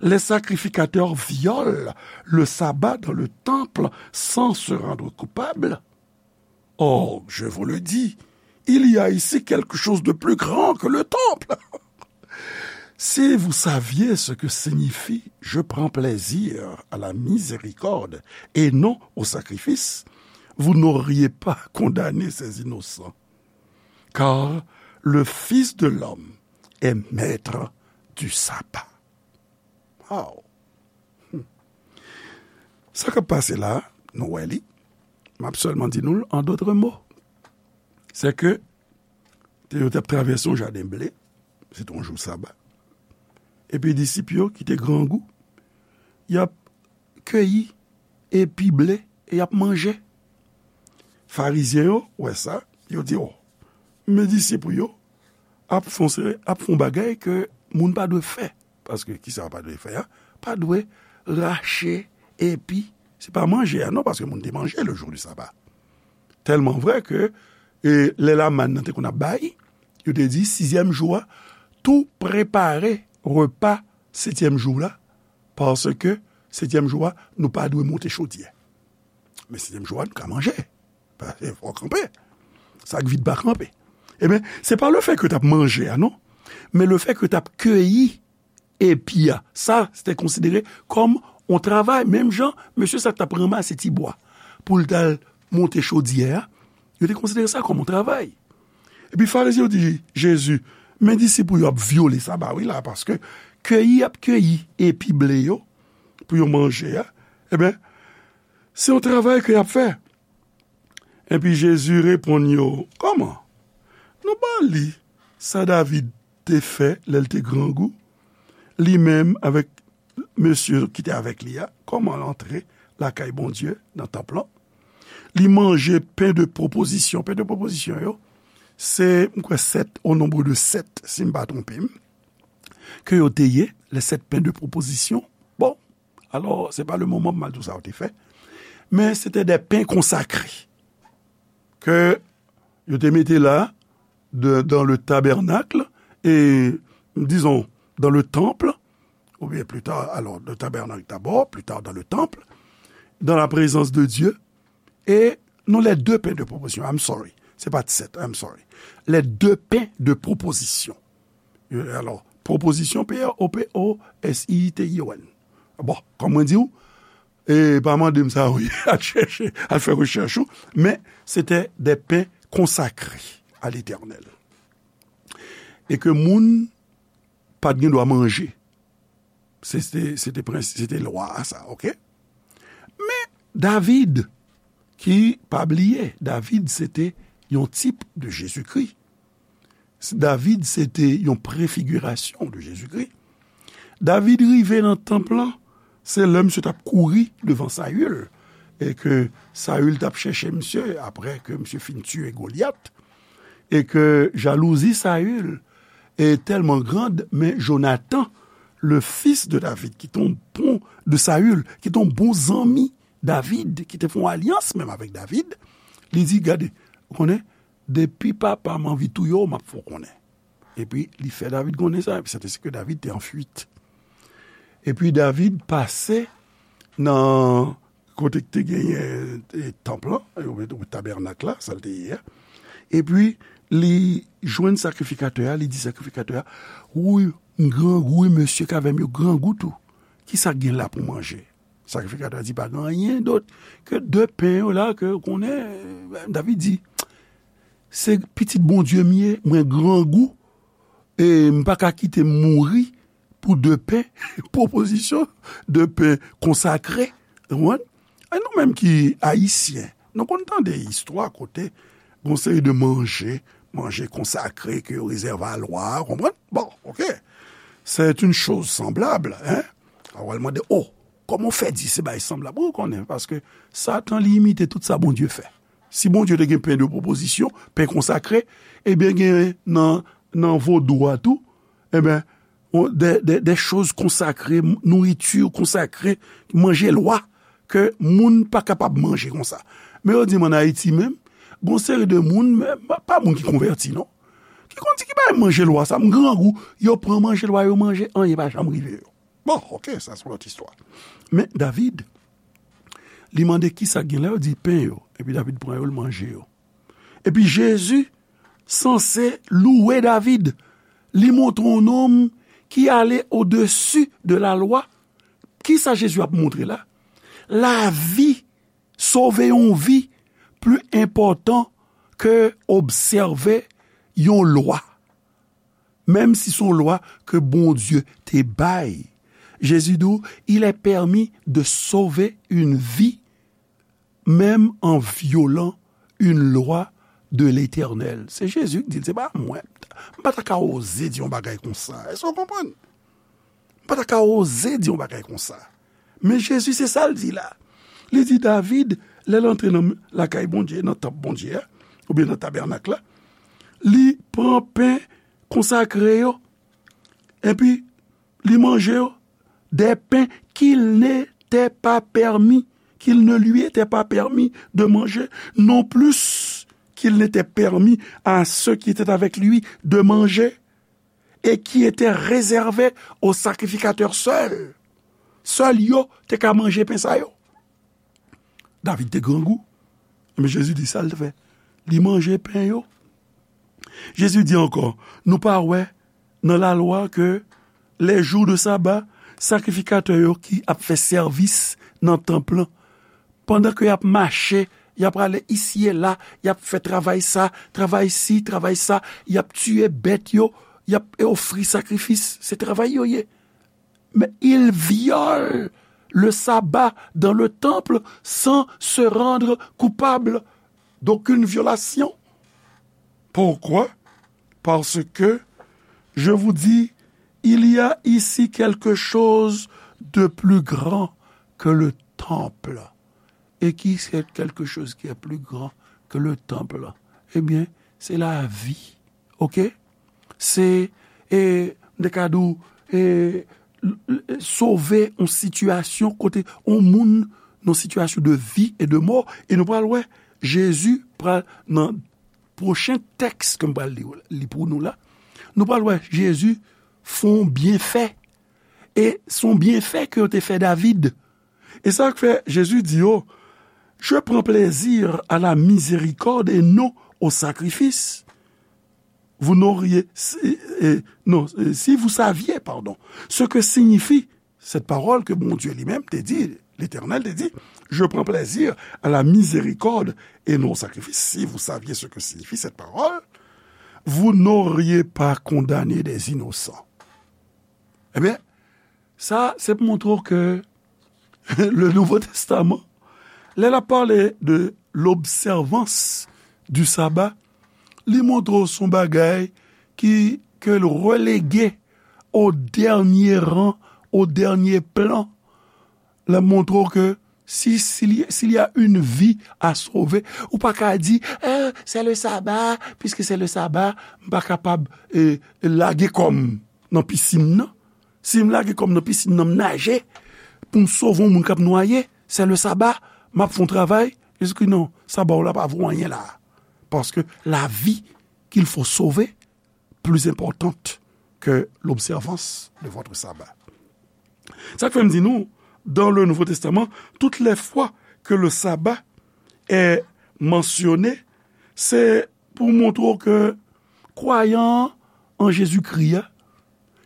les sacrificateurs violent le sabbat dans le temple sans se rendre coupables? Or, je vous le dis, il y a ici quelque chose de plus grand que le temple. Si vous saviez ce que signifie je prends plaisir à la miséricorde et non au sacrifice, vous n'auriez pas condamné ces innocents. Car le Fils de l'homme est maître du sabbat. Wow. Sa k ap pase la, nou wè li. M ap sèlman di nou l an dòt mo. Se ke te yo t ap travèse yon jaden ble, se te yon jou saba. Epi disip yo ki te grangou, y ap keyi epi ble e y ap manje. Farizyen yo wè sa, yo di, "O, men disip ou yo ap fè yon seri, ap fè yon bagay ke moun pa dwe fè." Paske kisa yo pa dwe fè a? Pa dwe rache epi, se pa manje a non, paske moun te manje le jou di saba. Tèlman vrè ke, e, lè lamann nan te konn ap bay, yo te di, sizyèm jou a, tou prepare repa setyèm jou la, paske setyèm jou a, nou pa dwe monte chodyè. Men setyèm jou a, nou ka manje. Paske fò kanpe. Sa k vid pa kanpe. Ebyen, se pa lefèt ke t ap manje a, non. Men lefèt ke t ap keyi epi a. Sa, se te konsidere kòm yon travay. Menm jan, mesye sa k t ap ranmase ti bwa pou l t al monte chodyè a, yo te konsidere sa kòm yon travay. Epi Farizyen yo di Jezi, "Men disip ou yo ap vyole saba wi la, paske keyi y ap keyi epi ble yo pou yo manje a, ebyen, se yon travay ke y ap fè." Epi Jezi reponn yo, "Kòman? Nou pa li sa David te fè lè l te grangou, li menm avèk mesye ki te avèk li a, kòman l antre lakay Bondye nan tanp lan? Li manje pen de pwopozisyon." Pen de pwopozisyon yo, se, m kwè, sèt, au nombre de sept, si m pa twonpe m, ke yo te ye, les sept pains de proposition. Bon, alò, se pa le moman pou m al di w sa yo te fè, men se te de pen konsakre ke yo te mete la de, dans le tabernacle, et, disons, dans le temple, ou bien plus tard, alors, le tabernacle d'abord, plus tard dans le temple, dans la présence de Dieu, et non, les deux pains de proposition, I'm sorry, se pa t sèt, I'm sorry, les deux pains de proposition. Euh, alors, proposition, P R O P O S I T I O N. Bon, kòm mwen di w, e pa mande m sa, wi, al chèche, al fè rechèch ou, men se te de pen konsakre a Letènèl. E ke moun pa t gen dwa manje. Se, se, se te prens-, se te lwa a sa, oke? Men David, ki, pa bliye, David se te yon tip de Jezikri. David se te yon prefigirasyon de Jezikri. David rive nan tanp lan, se lè misye t ap kouri devan Sayil, e ke Sayil t ap chèche misye, apre ke misye fin tiye Golyat, e ke jalouzi Sayil e tèlman grand, men Jonatan, le fils de David, ki te yon bon, de Sayil, ki te yon bon zanmi David, ki te fè yon alyans menm avèk David, li di, "Gade, ou konnen, depi papa m anvi touye w, m ap fè w konnen." Epi, li fè David konnen sa, epi se te si ke David te an fuit. Epi, David pase nan kote ki te genyen, e, tanp lan, e, ou, ou tabènak la, sa l te ye a. Epi, li jwenn sakrifikatè a, li di sakrifikatè a, "Wi, m grangou, wi, mesye k avè m yo grangou tou. Kisa k gen la pou manje?" Sakrifikatè a di, "Pa gen anyen dòt ke de pen yo la, ke ou konnen." David di, "Se pitit Bondye m ye, mwen grangou, e m pa ka kite m mouri pou de pen, pwopozisyon de pen konsakre." Ou konprann? E nou menm ki Ayisyen, nou konn tande istwa kote gon seri de manje, manje konsakre ke yo rezève a lwa a, konprann? Bon, oke. C'est une chose semblable, hein? A w al mande, "O, kòman w fè di se bagay sanblab? Wi, ou konnen, paske Satan, li imite tout sa Bondye fè. Si Bondye te gen pen de pwopozisyon, pen konsakre, ebyen, gen nan, nan vodou a tou, ebyen, on, de, de, de choz konsakre, nouriti konsakre, manje lwa, ke moun pa kapab manje konsa. Men yo di m ann Ayiti menm, gon seri de moun, men pa, pa moun ki konvèti, non, ki konn di ki bagay manje lwa sa, m grangou, yo pran manje lwa, yo manje, anyen pa janm rive yo. Bon, oke, sa se yon lòt istwa. Men David, li mande ki sa k gen la, yo di pen yo. Epi David pran yo, l manje yo. Epi Jezi sanse louwe David. Li montre yon nonm ki ale odesi de lalwa. Ki sa Jezi ap montre la? Lavi, sove yon vi, pli enpòtan ke obsève yon lwa. Menm si se yon lwa ke Bondye te bay. Jezi di w, il est permis de sauver une vie, même en violant une loi de l'Éternel. Se Jezi ki di l, se pa mwen. M pa ta ka oze di yon bagay konsa. Èske w konprann? M pa ta ka oze di yon bagay konsa. Men Jezi, se sa l di la. Li di David, lè l antre nan lakay Bondye, nan tanp Bondye a, oubyen nan tabènak la, li pran pen konsakre yo, epi li manje yo, des pains qu'il n'était pas permis, qu'il ne lui était pas permis de manger, non plus qu'il n'était permis à ceux qui étaient avec lui de manger, et qui étaient réservés aux sacrificateurs seuls. Sèl yo te ka manje pen sa yo. David te grangou. Men Jezi di sa l fè. Li manje pen yo. Jezi di ankò, nou pa wè nan lalwa ke les jours de sabbat, sakrifikatè yo ki ap fè sèvis nan tanp lan, pandan ke y ap mache, y ap ale isi e la, y ap fè travay sa, travay si, travay sa, y ap tiye bèt yo, y ap ofri sakrifis, se travay yo ye. Mais il viole le sabbat dans le temple sans se rendre coupable d'aucune violation. Pourquoi? Parce que, je vous dis, il y a ici quelque chose de plus grand que le temple. Et qui c'est quelque chose qui est plus grand que le temple? Eh bien, c'est la vie. Oke? Se, e, m te ka di w, e, l-, l-, sove yon sitiyasyon kote yon moun nan sitiyasyon de vi e de mò. E nou pral wè, Jezi pral, nan pwochen tèks ke m pral li, li pou nou la, nou pral wè Jezi fè yon byenfè. E se yon byenfè ke yo te fè David. E sa k fè Jezi di yo, je prends plaisir à la miséricorde et non au sacrifice. Vous n'auriez, si, eh, non, eh, si vous saviez, pardon, ce que signifie cette parole que Bondye li menm te di, Letènèl te di, je prends plaisir à la miséricorde et non au sacrifice. Si vous saviez ce que signifie cette parole, vous n'auriez pas condamné des innocents. Ebyen, sa, se pou montre w ke le Nouveau Testament, lè l ap pale de l'observance du sabbat, li montre w se yon bagay ki, ke l relege au dernier rang, au dernier plan. L ap montre w ke si, s'il y, s'il y a une vie à sauver, ou pa ka di, eh, c'est le sabbat, puisque c'est le sabbat, m pa kapab, eh, lage kò m nan pisin nan. Si m lage kò m nan pisin nan, m naje pou m sove yon moun k ap nwaye, c'est le sabbat, m ap fè yon travay. Jezi di, non, saba w la pa vo anyen la. Parce que la vie qu'il faut sauver, plus importante que l'observance de votre sabbat. Sa k fè m di nou, dans le Nouveau Testament, toutes les fois que le sabbat est mentionné, se pou montre w ke kwayan an Jezikri a,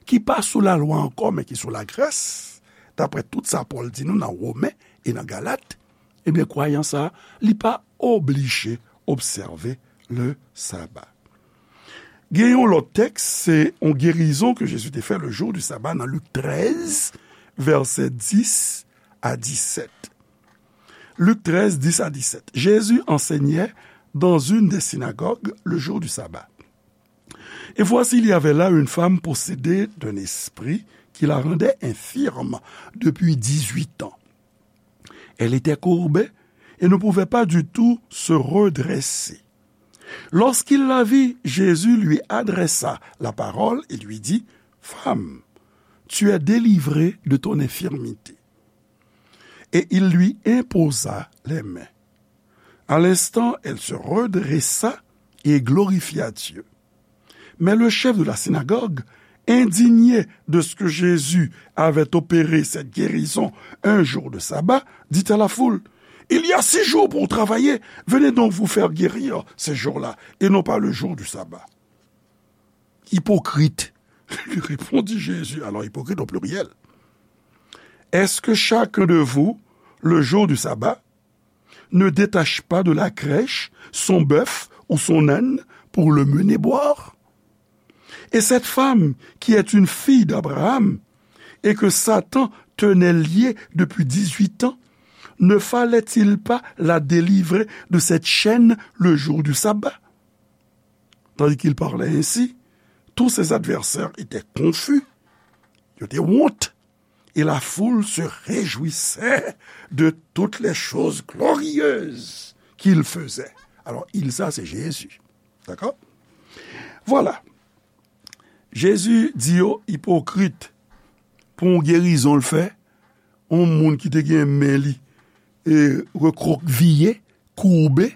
ki pa sou lalwa ankò, men ki sou lagras, daprè tout sa Pòl di nou nan Women e nan Galat, ebyen, kwayan sa a, li pa oblije obsève le sabbat. Gen yon lòt tèks, se yon gerizon ke Jezi te fè le jour du sabbat nan Lik trèz, vèsè dis a disèt. Lik trèz, dis a disèt. Jésus enseignait dans une des synagogues le jour du sabbat. Et voici, il y avait là une femme possédée d'un esprit qui la rendait infirme depuis dix-huit ans. Elle était courbée et ne pouvait pas du tout se redresser. Lorsqu'il la vit, Jésus lui adressa la parole et lui dit, Femme, tu es délivrée de ton infirmité. Et il lui imposa les mains. À l'instant, elle se redressa et glorifia Dieu. Mais le chef de la synagogue, indigné de ce que Jésus avait opéré cette guérison un jour de sabbat, dit à la foule, Il y a six jours pour travailler, venez donc vous faire guérir ces jours-là, et non pas le jour du sabbat. Hypocrite, lui répondit Jésus, alors hypocrite au pluriel. Est-ce que chacun de vous, le jour du sabbat, ne détache pas de la crèche son bœuf ou son âne pour le mener boire? Et cette femme qui est une fille d'Abraham et que Satan tenait liée depuis dix-huit ans, ne fallait-il pas la délivrer de cette chaîne le jour du sabbat? Tandis qu'il parlait ainsi, tous ses adversaires étaient confus, yo te wont, et la foule se réjouissait de toutes les choses glorieuses qu'il faisait. Alors, il, ça, c'est Jésus. D'accord? Voilà. Jezi di yo ipokrit pou yon gerizon l fè, yon moun ki te gen men li e rekrokviye, koube,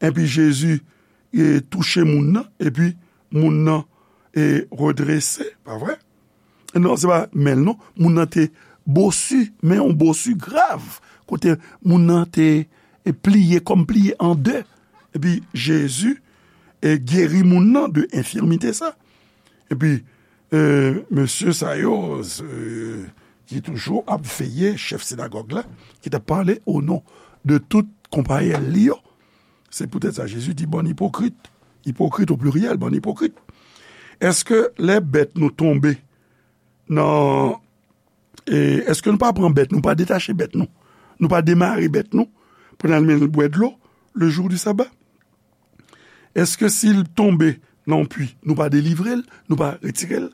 epi Jezi e touche moun nan, epi moun nan e redrese, pa vre? Non, se pa men l non. Moun nan te bosi, men yon bosi grav, kote moun nan te e pliye kòm pliye an de. Epi Jezi e geri moun nan de enfimite sa. Epi e, mesye sa yo, e, ki toujou ap veye, chèf sinagòg la, ki t ap pale o non de tout konpayèl li yo. Se poutèt sa Jezi di, bann ipokrit, ipokrit o pliryèl, bann ipokrit. Èske lè bèt nou tonbe nan, e, èske nou pa pran bèt nou, pa detache bèt nou, nou pa demare bèt nou pou n al mennen l bwè dlo le jou di saba? Èske si l tonbe nan yon pwi, nou pa delivre l, nou pa retire l?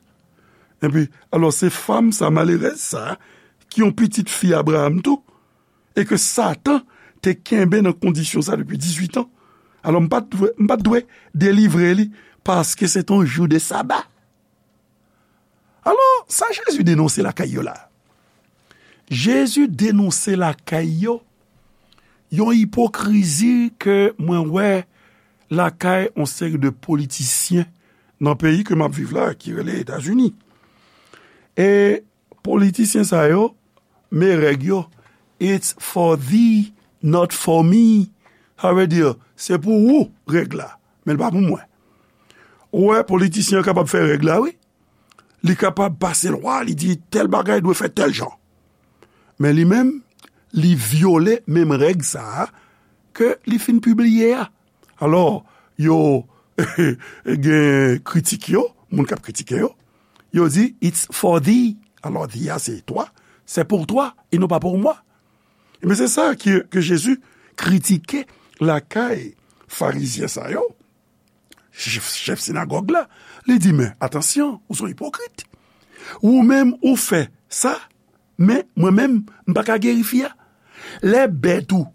Epi, alò, se fanm sa, malerèz sa, ki yon pitit fi Abraram tou, e ke Satan te kenbe nan kondisyon sa depi dizuit an. Alò, m pa t dwe, m pa t dwe delivre li, paske se te yon jou de saba. Alò, sa Jezi denonse lakay yo la? Jezi denonse lakay yo yon ipokrizi ke mwen wè lakay yon seri de politisyen nan peyi ke m ap viv la, ki rele Etazini. E politisyen sa yo, men règ yo, "It's for thee, not for me." Sa vle di, se pou ou règ la, men l pa pou mwen. Ou wè, politisyen an kapab fè règ la, wi. Li kapab pase lwa, li di tèl bagay dwe fèt tèl jan. Men li menm, li vyole menm règ sa a ke li fin pibliye a. Alò, yo gen kritik yo, moun k ap kritike yo, yo di, "It's for thee." Alò, thee a se toi, c'est pour toi et non pas pour moi. Ebyen, se sa ke, ke Jezi kritike lakay farizyen sa yo, chèf, chèf sinagòg la. Li di, "Men, atansyon, ou se yon ipokrit. Ou menm, ou fè sa, men mwen menm, m pa ka geri fi a." Lè bèt ou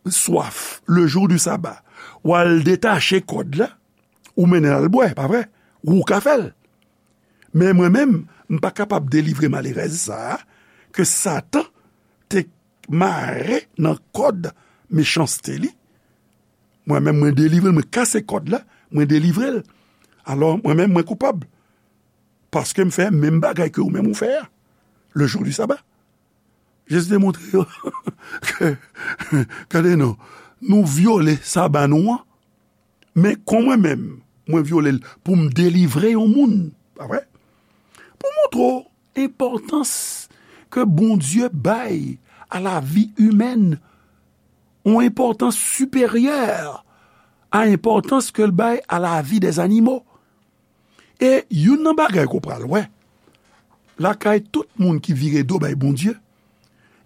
swaf, le jou di saba, w al detache kòd la, ou mennen l al bwè, pa vre? Ou ka fè l. Men mwen menm, m pa kapab delivre malerèz sa a, ke Satan te mare nan kòd mechanste li. Mwen menm, mwen delivre l, mwen kase kòd la, mwen delivre l. Alò, mwen menm, mwen koupab. Paske m fè menm bagay ke ou menm ou fè a, le jou di saba. Jezi te montre yo ke, gade non, nou vyole saba nou an, men kon mwen menm, mwen vyole l pou m delivre yon moun, pa vre? Pou montre w enpòtans ke Bondye bay a lavi imèn, yon enpòtans siperyè a enpòtans ke l bay a lavi dèzanimo. E youn nan bagay ke w pral wè, lakay tout moun ki vire do bay Bondye,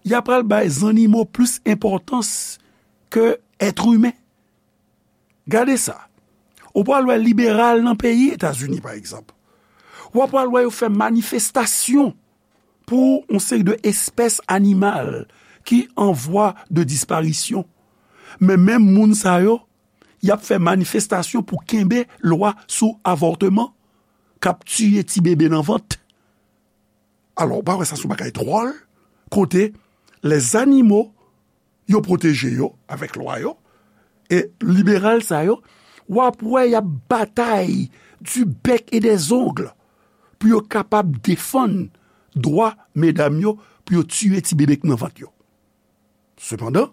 y a pral bay zannimo plis enpòtans ke èt imen. Gade sa. Ou pral wè liberal nan peyi Etazini, pa egzanp. W ap pral wè yo fè manifestasyon pou yon seri de espès animal ki an vwa de disparisyon. Men menm moun sa yo, y ap fè manifestasyon pou kenbe lwa sou avòtman, k ap tiye ti bebe nan vant. Alò, ou pa wè sa se yon bagay dwòl, kote lèzanimo, yo pwoteje yo avèk lwa yo, e liberal sa yo, w ap wè y ap batay du bec et des ongles pou yo kapab defann dwa medam yo pou yo tiye ti bebe k nan vant yo. Sepandan,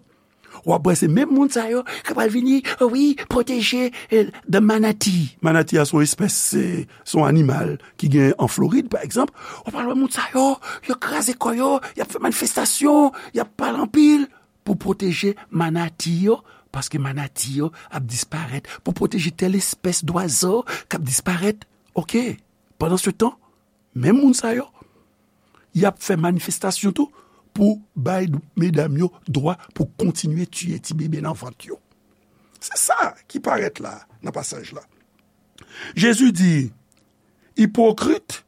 w ap wè se menm moun sa yo ki pral vini, wi, pwoteje, eh, the manatee. Manatee a se yon espès, se, se yon animal ki gen an Florid, pa egzanp. W ap wè moun sa yo, yo kraze kò yo, y ap fè manifestasyon, y ap pale anpil pou pwoteje manati yo, paske manati yo ap disparèt, pou pwoteje tèl espès dwazo k ap disparèt. Oke, pandan se tan, menm moun sa yo, y ap fè manifestasyon tou pou bay medam yo dwa pou kontinye tiye ti bebe nan vant yo. Se sa ki parèt la, nan pasaj la. Jezi di, Hypocrite,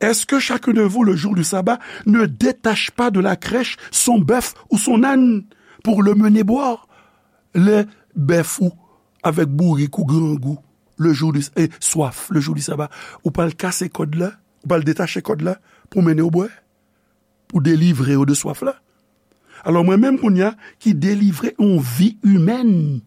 est-ce que chacun de vous, le jour du sabbat, ne détache pas de la crèche son bœuf ou son âne pour le mener boire? Lè bèf ou avèk bourik ou grangou, le jour du, eh, swaf, le jour du sabbat, ou pral kase kòd la, ou pral detache kòd la pou mennen yo bwè, pou delivre yo de swaf la. Alò, mwen menm kounye a ki delivre yon vi imèn,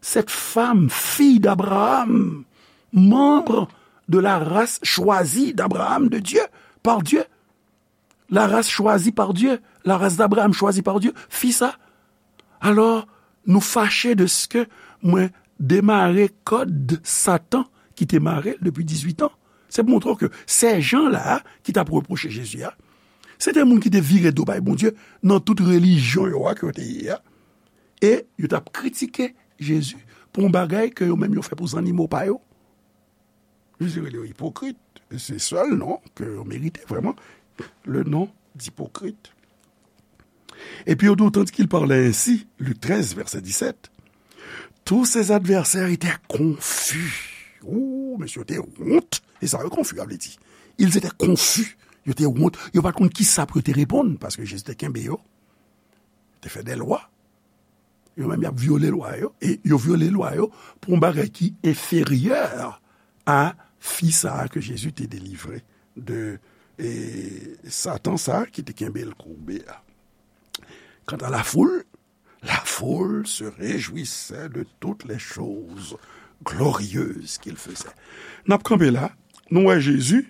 cette femme, fille d'Abraham, membre de la race choisie d'Abraham, de Dieu, par Dieu, la race choisie par Dieu, la race d'Abraham choisie par Dieu, fi sa. Alò, nou fache de ce que mwen demare kòd Satan ki te mare l depi dizuit an. Se pou montre w ke sèjan la a ki t ap repwoche Jezi a, se te moun ki te vire do bay Bondye nan tout relijyon yo a ke yo te ye a. E yo t ap kritike Jezi pou yon bagay ke yo menm yo fè pou zannimo pa yo. Jezi rele yo ipokrit. E se sèl non ke yo merite vrèman, le nom d'hypocrite. Et puis, d'autant qu'il parlait ainsi, Luc treize, verset dix-sept, tous ses adversaires étaient confus. Ou, mesye yo te wont. E sa yo konfi a vle di. Ils étaient confus. Yo te wont. Yo pa t konn kisa pou yo te reponn, paske Jezi te kenbe yo, te fè de lwa. Yo menm, y ap vyole lwa yo, e yo vyole lwa yo pou yon bagay ki enferyè a fi sa a ke Jezi te delivre de, e, Satan sa a ki te kenbe l koube a. Kanta lafoul, la foule se réjouissait de toutes les choses glorieuses qu'il faisait. N ap kanpe la, nou wè Jezi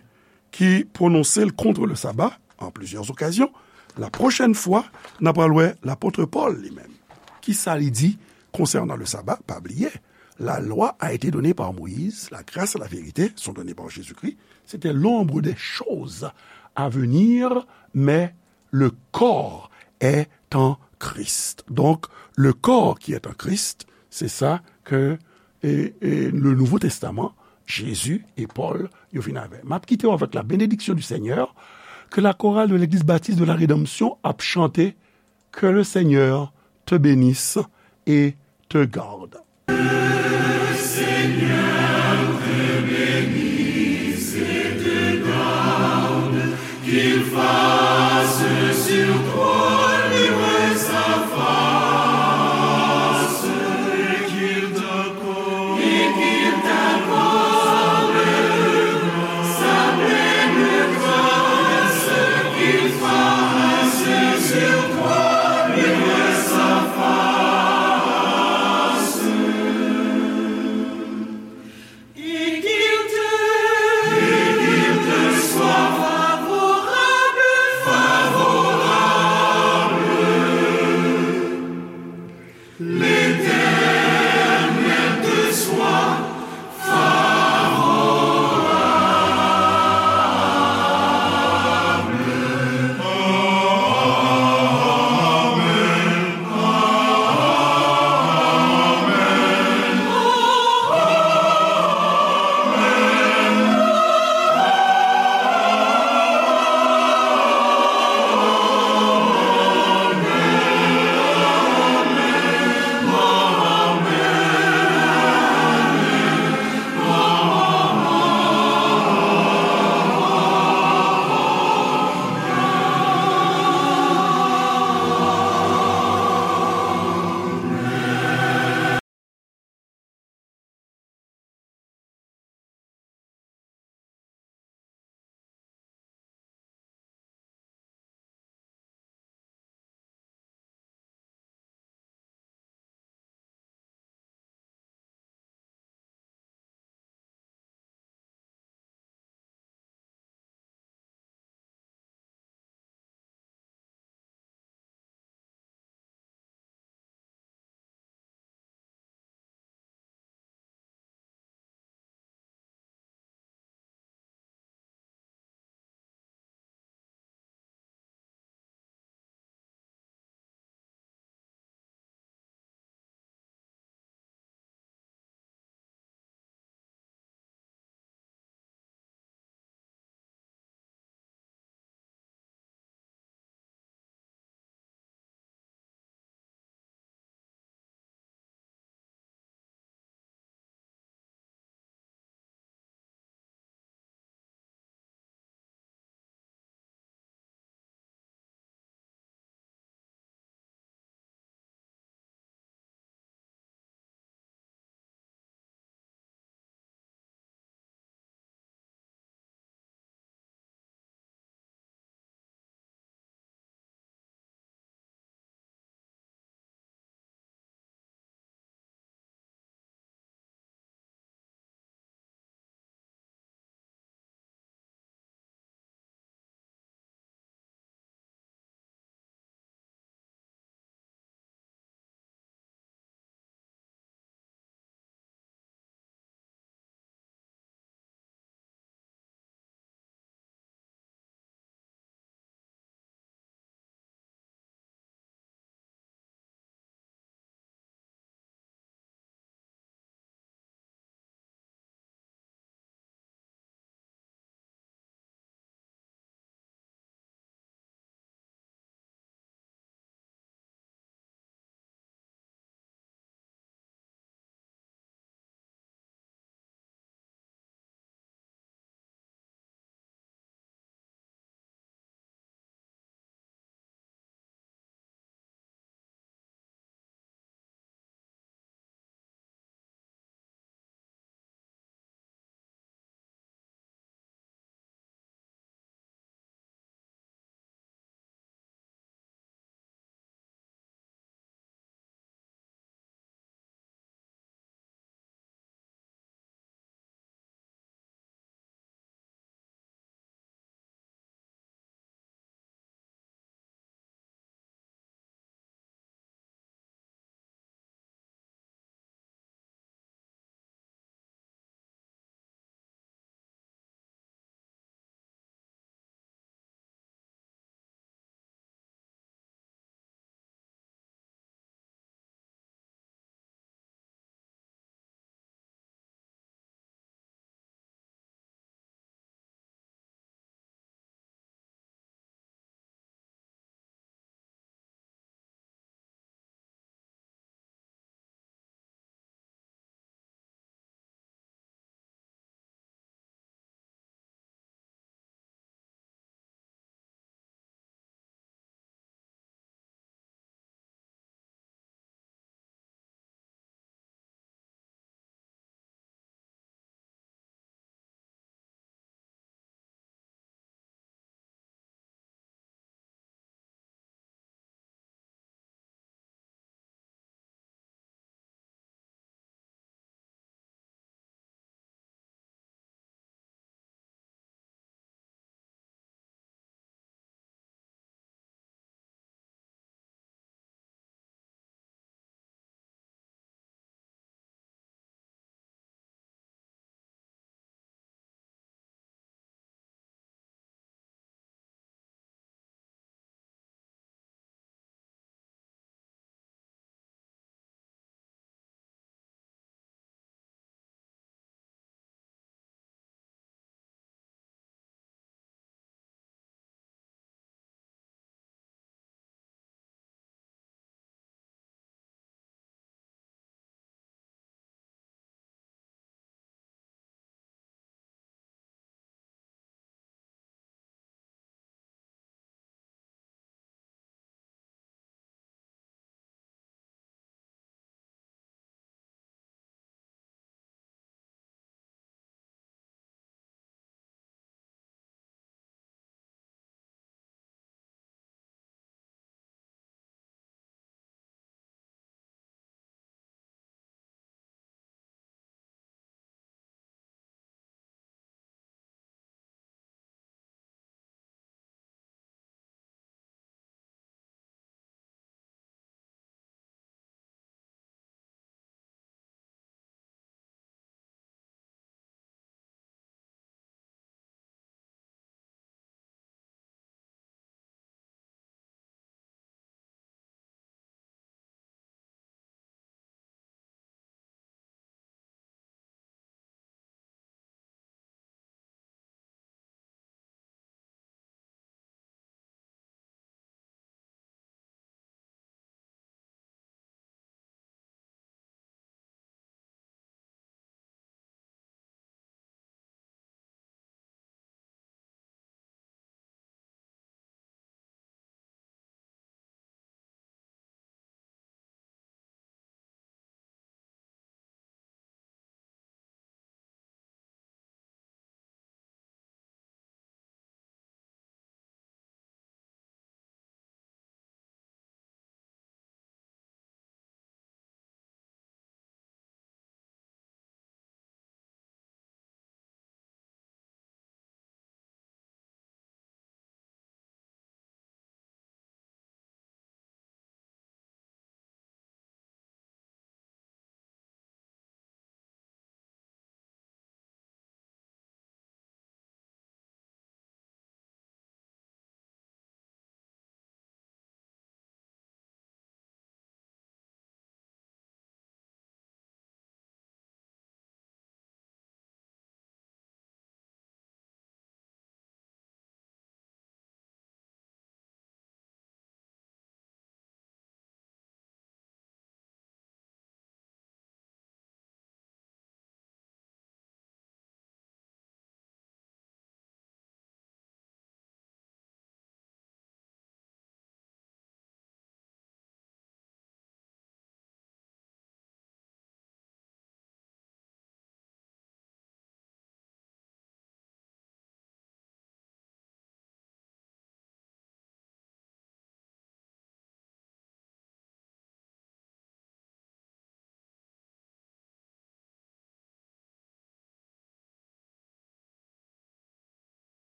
ki pwononse l contre le sabbat en plusieurs occasions. La prochaine fois, n ap pral wè lapot Pòl li menm. Kisa li di konsènan le sabbat? Pa bliye, la loi a été donnée par Moïse, la grâce et la vérité sont données par Jésus-Christ. C'était l'ombre des choses à venir, mais le corps est en Christ. Donc, le corps qui est en Christ, c'est ça que, et, et le Nouveau Testament, Jésus et Paul, yo vin avè. M ap kite w avèk la bénédiction du Seigneur, que la chorale de l'Église baptiste de la Rédemption ap chante, que le Seigneur te bénisse et te garde.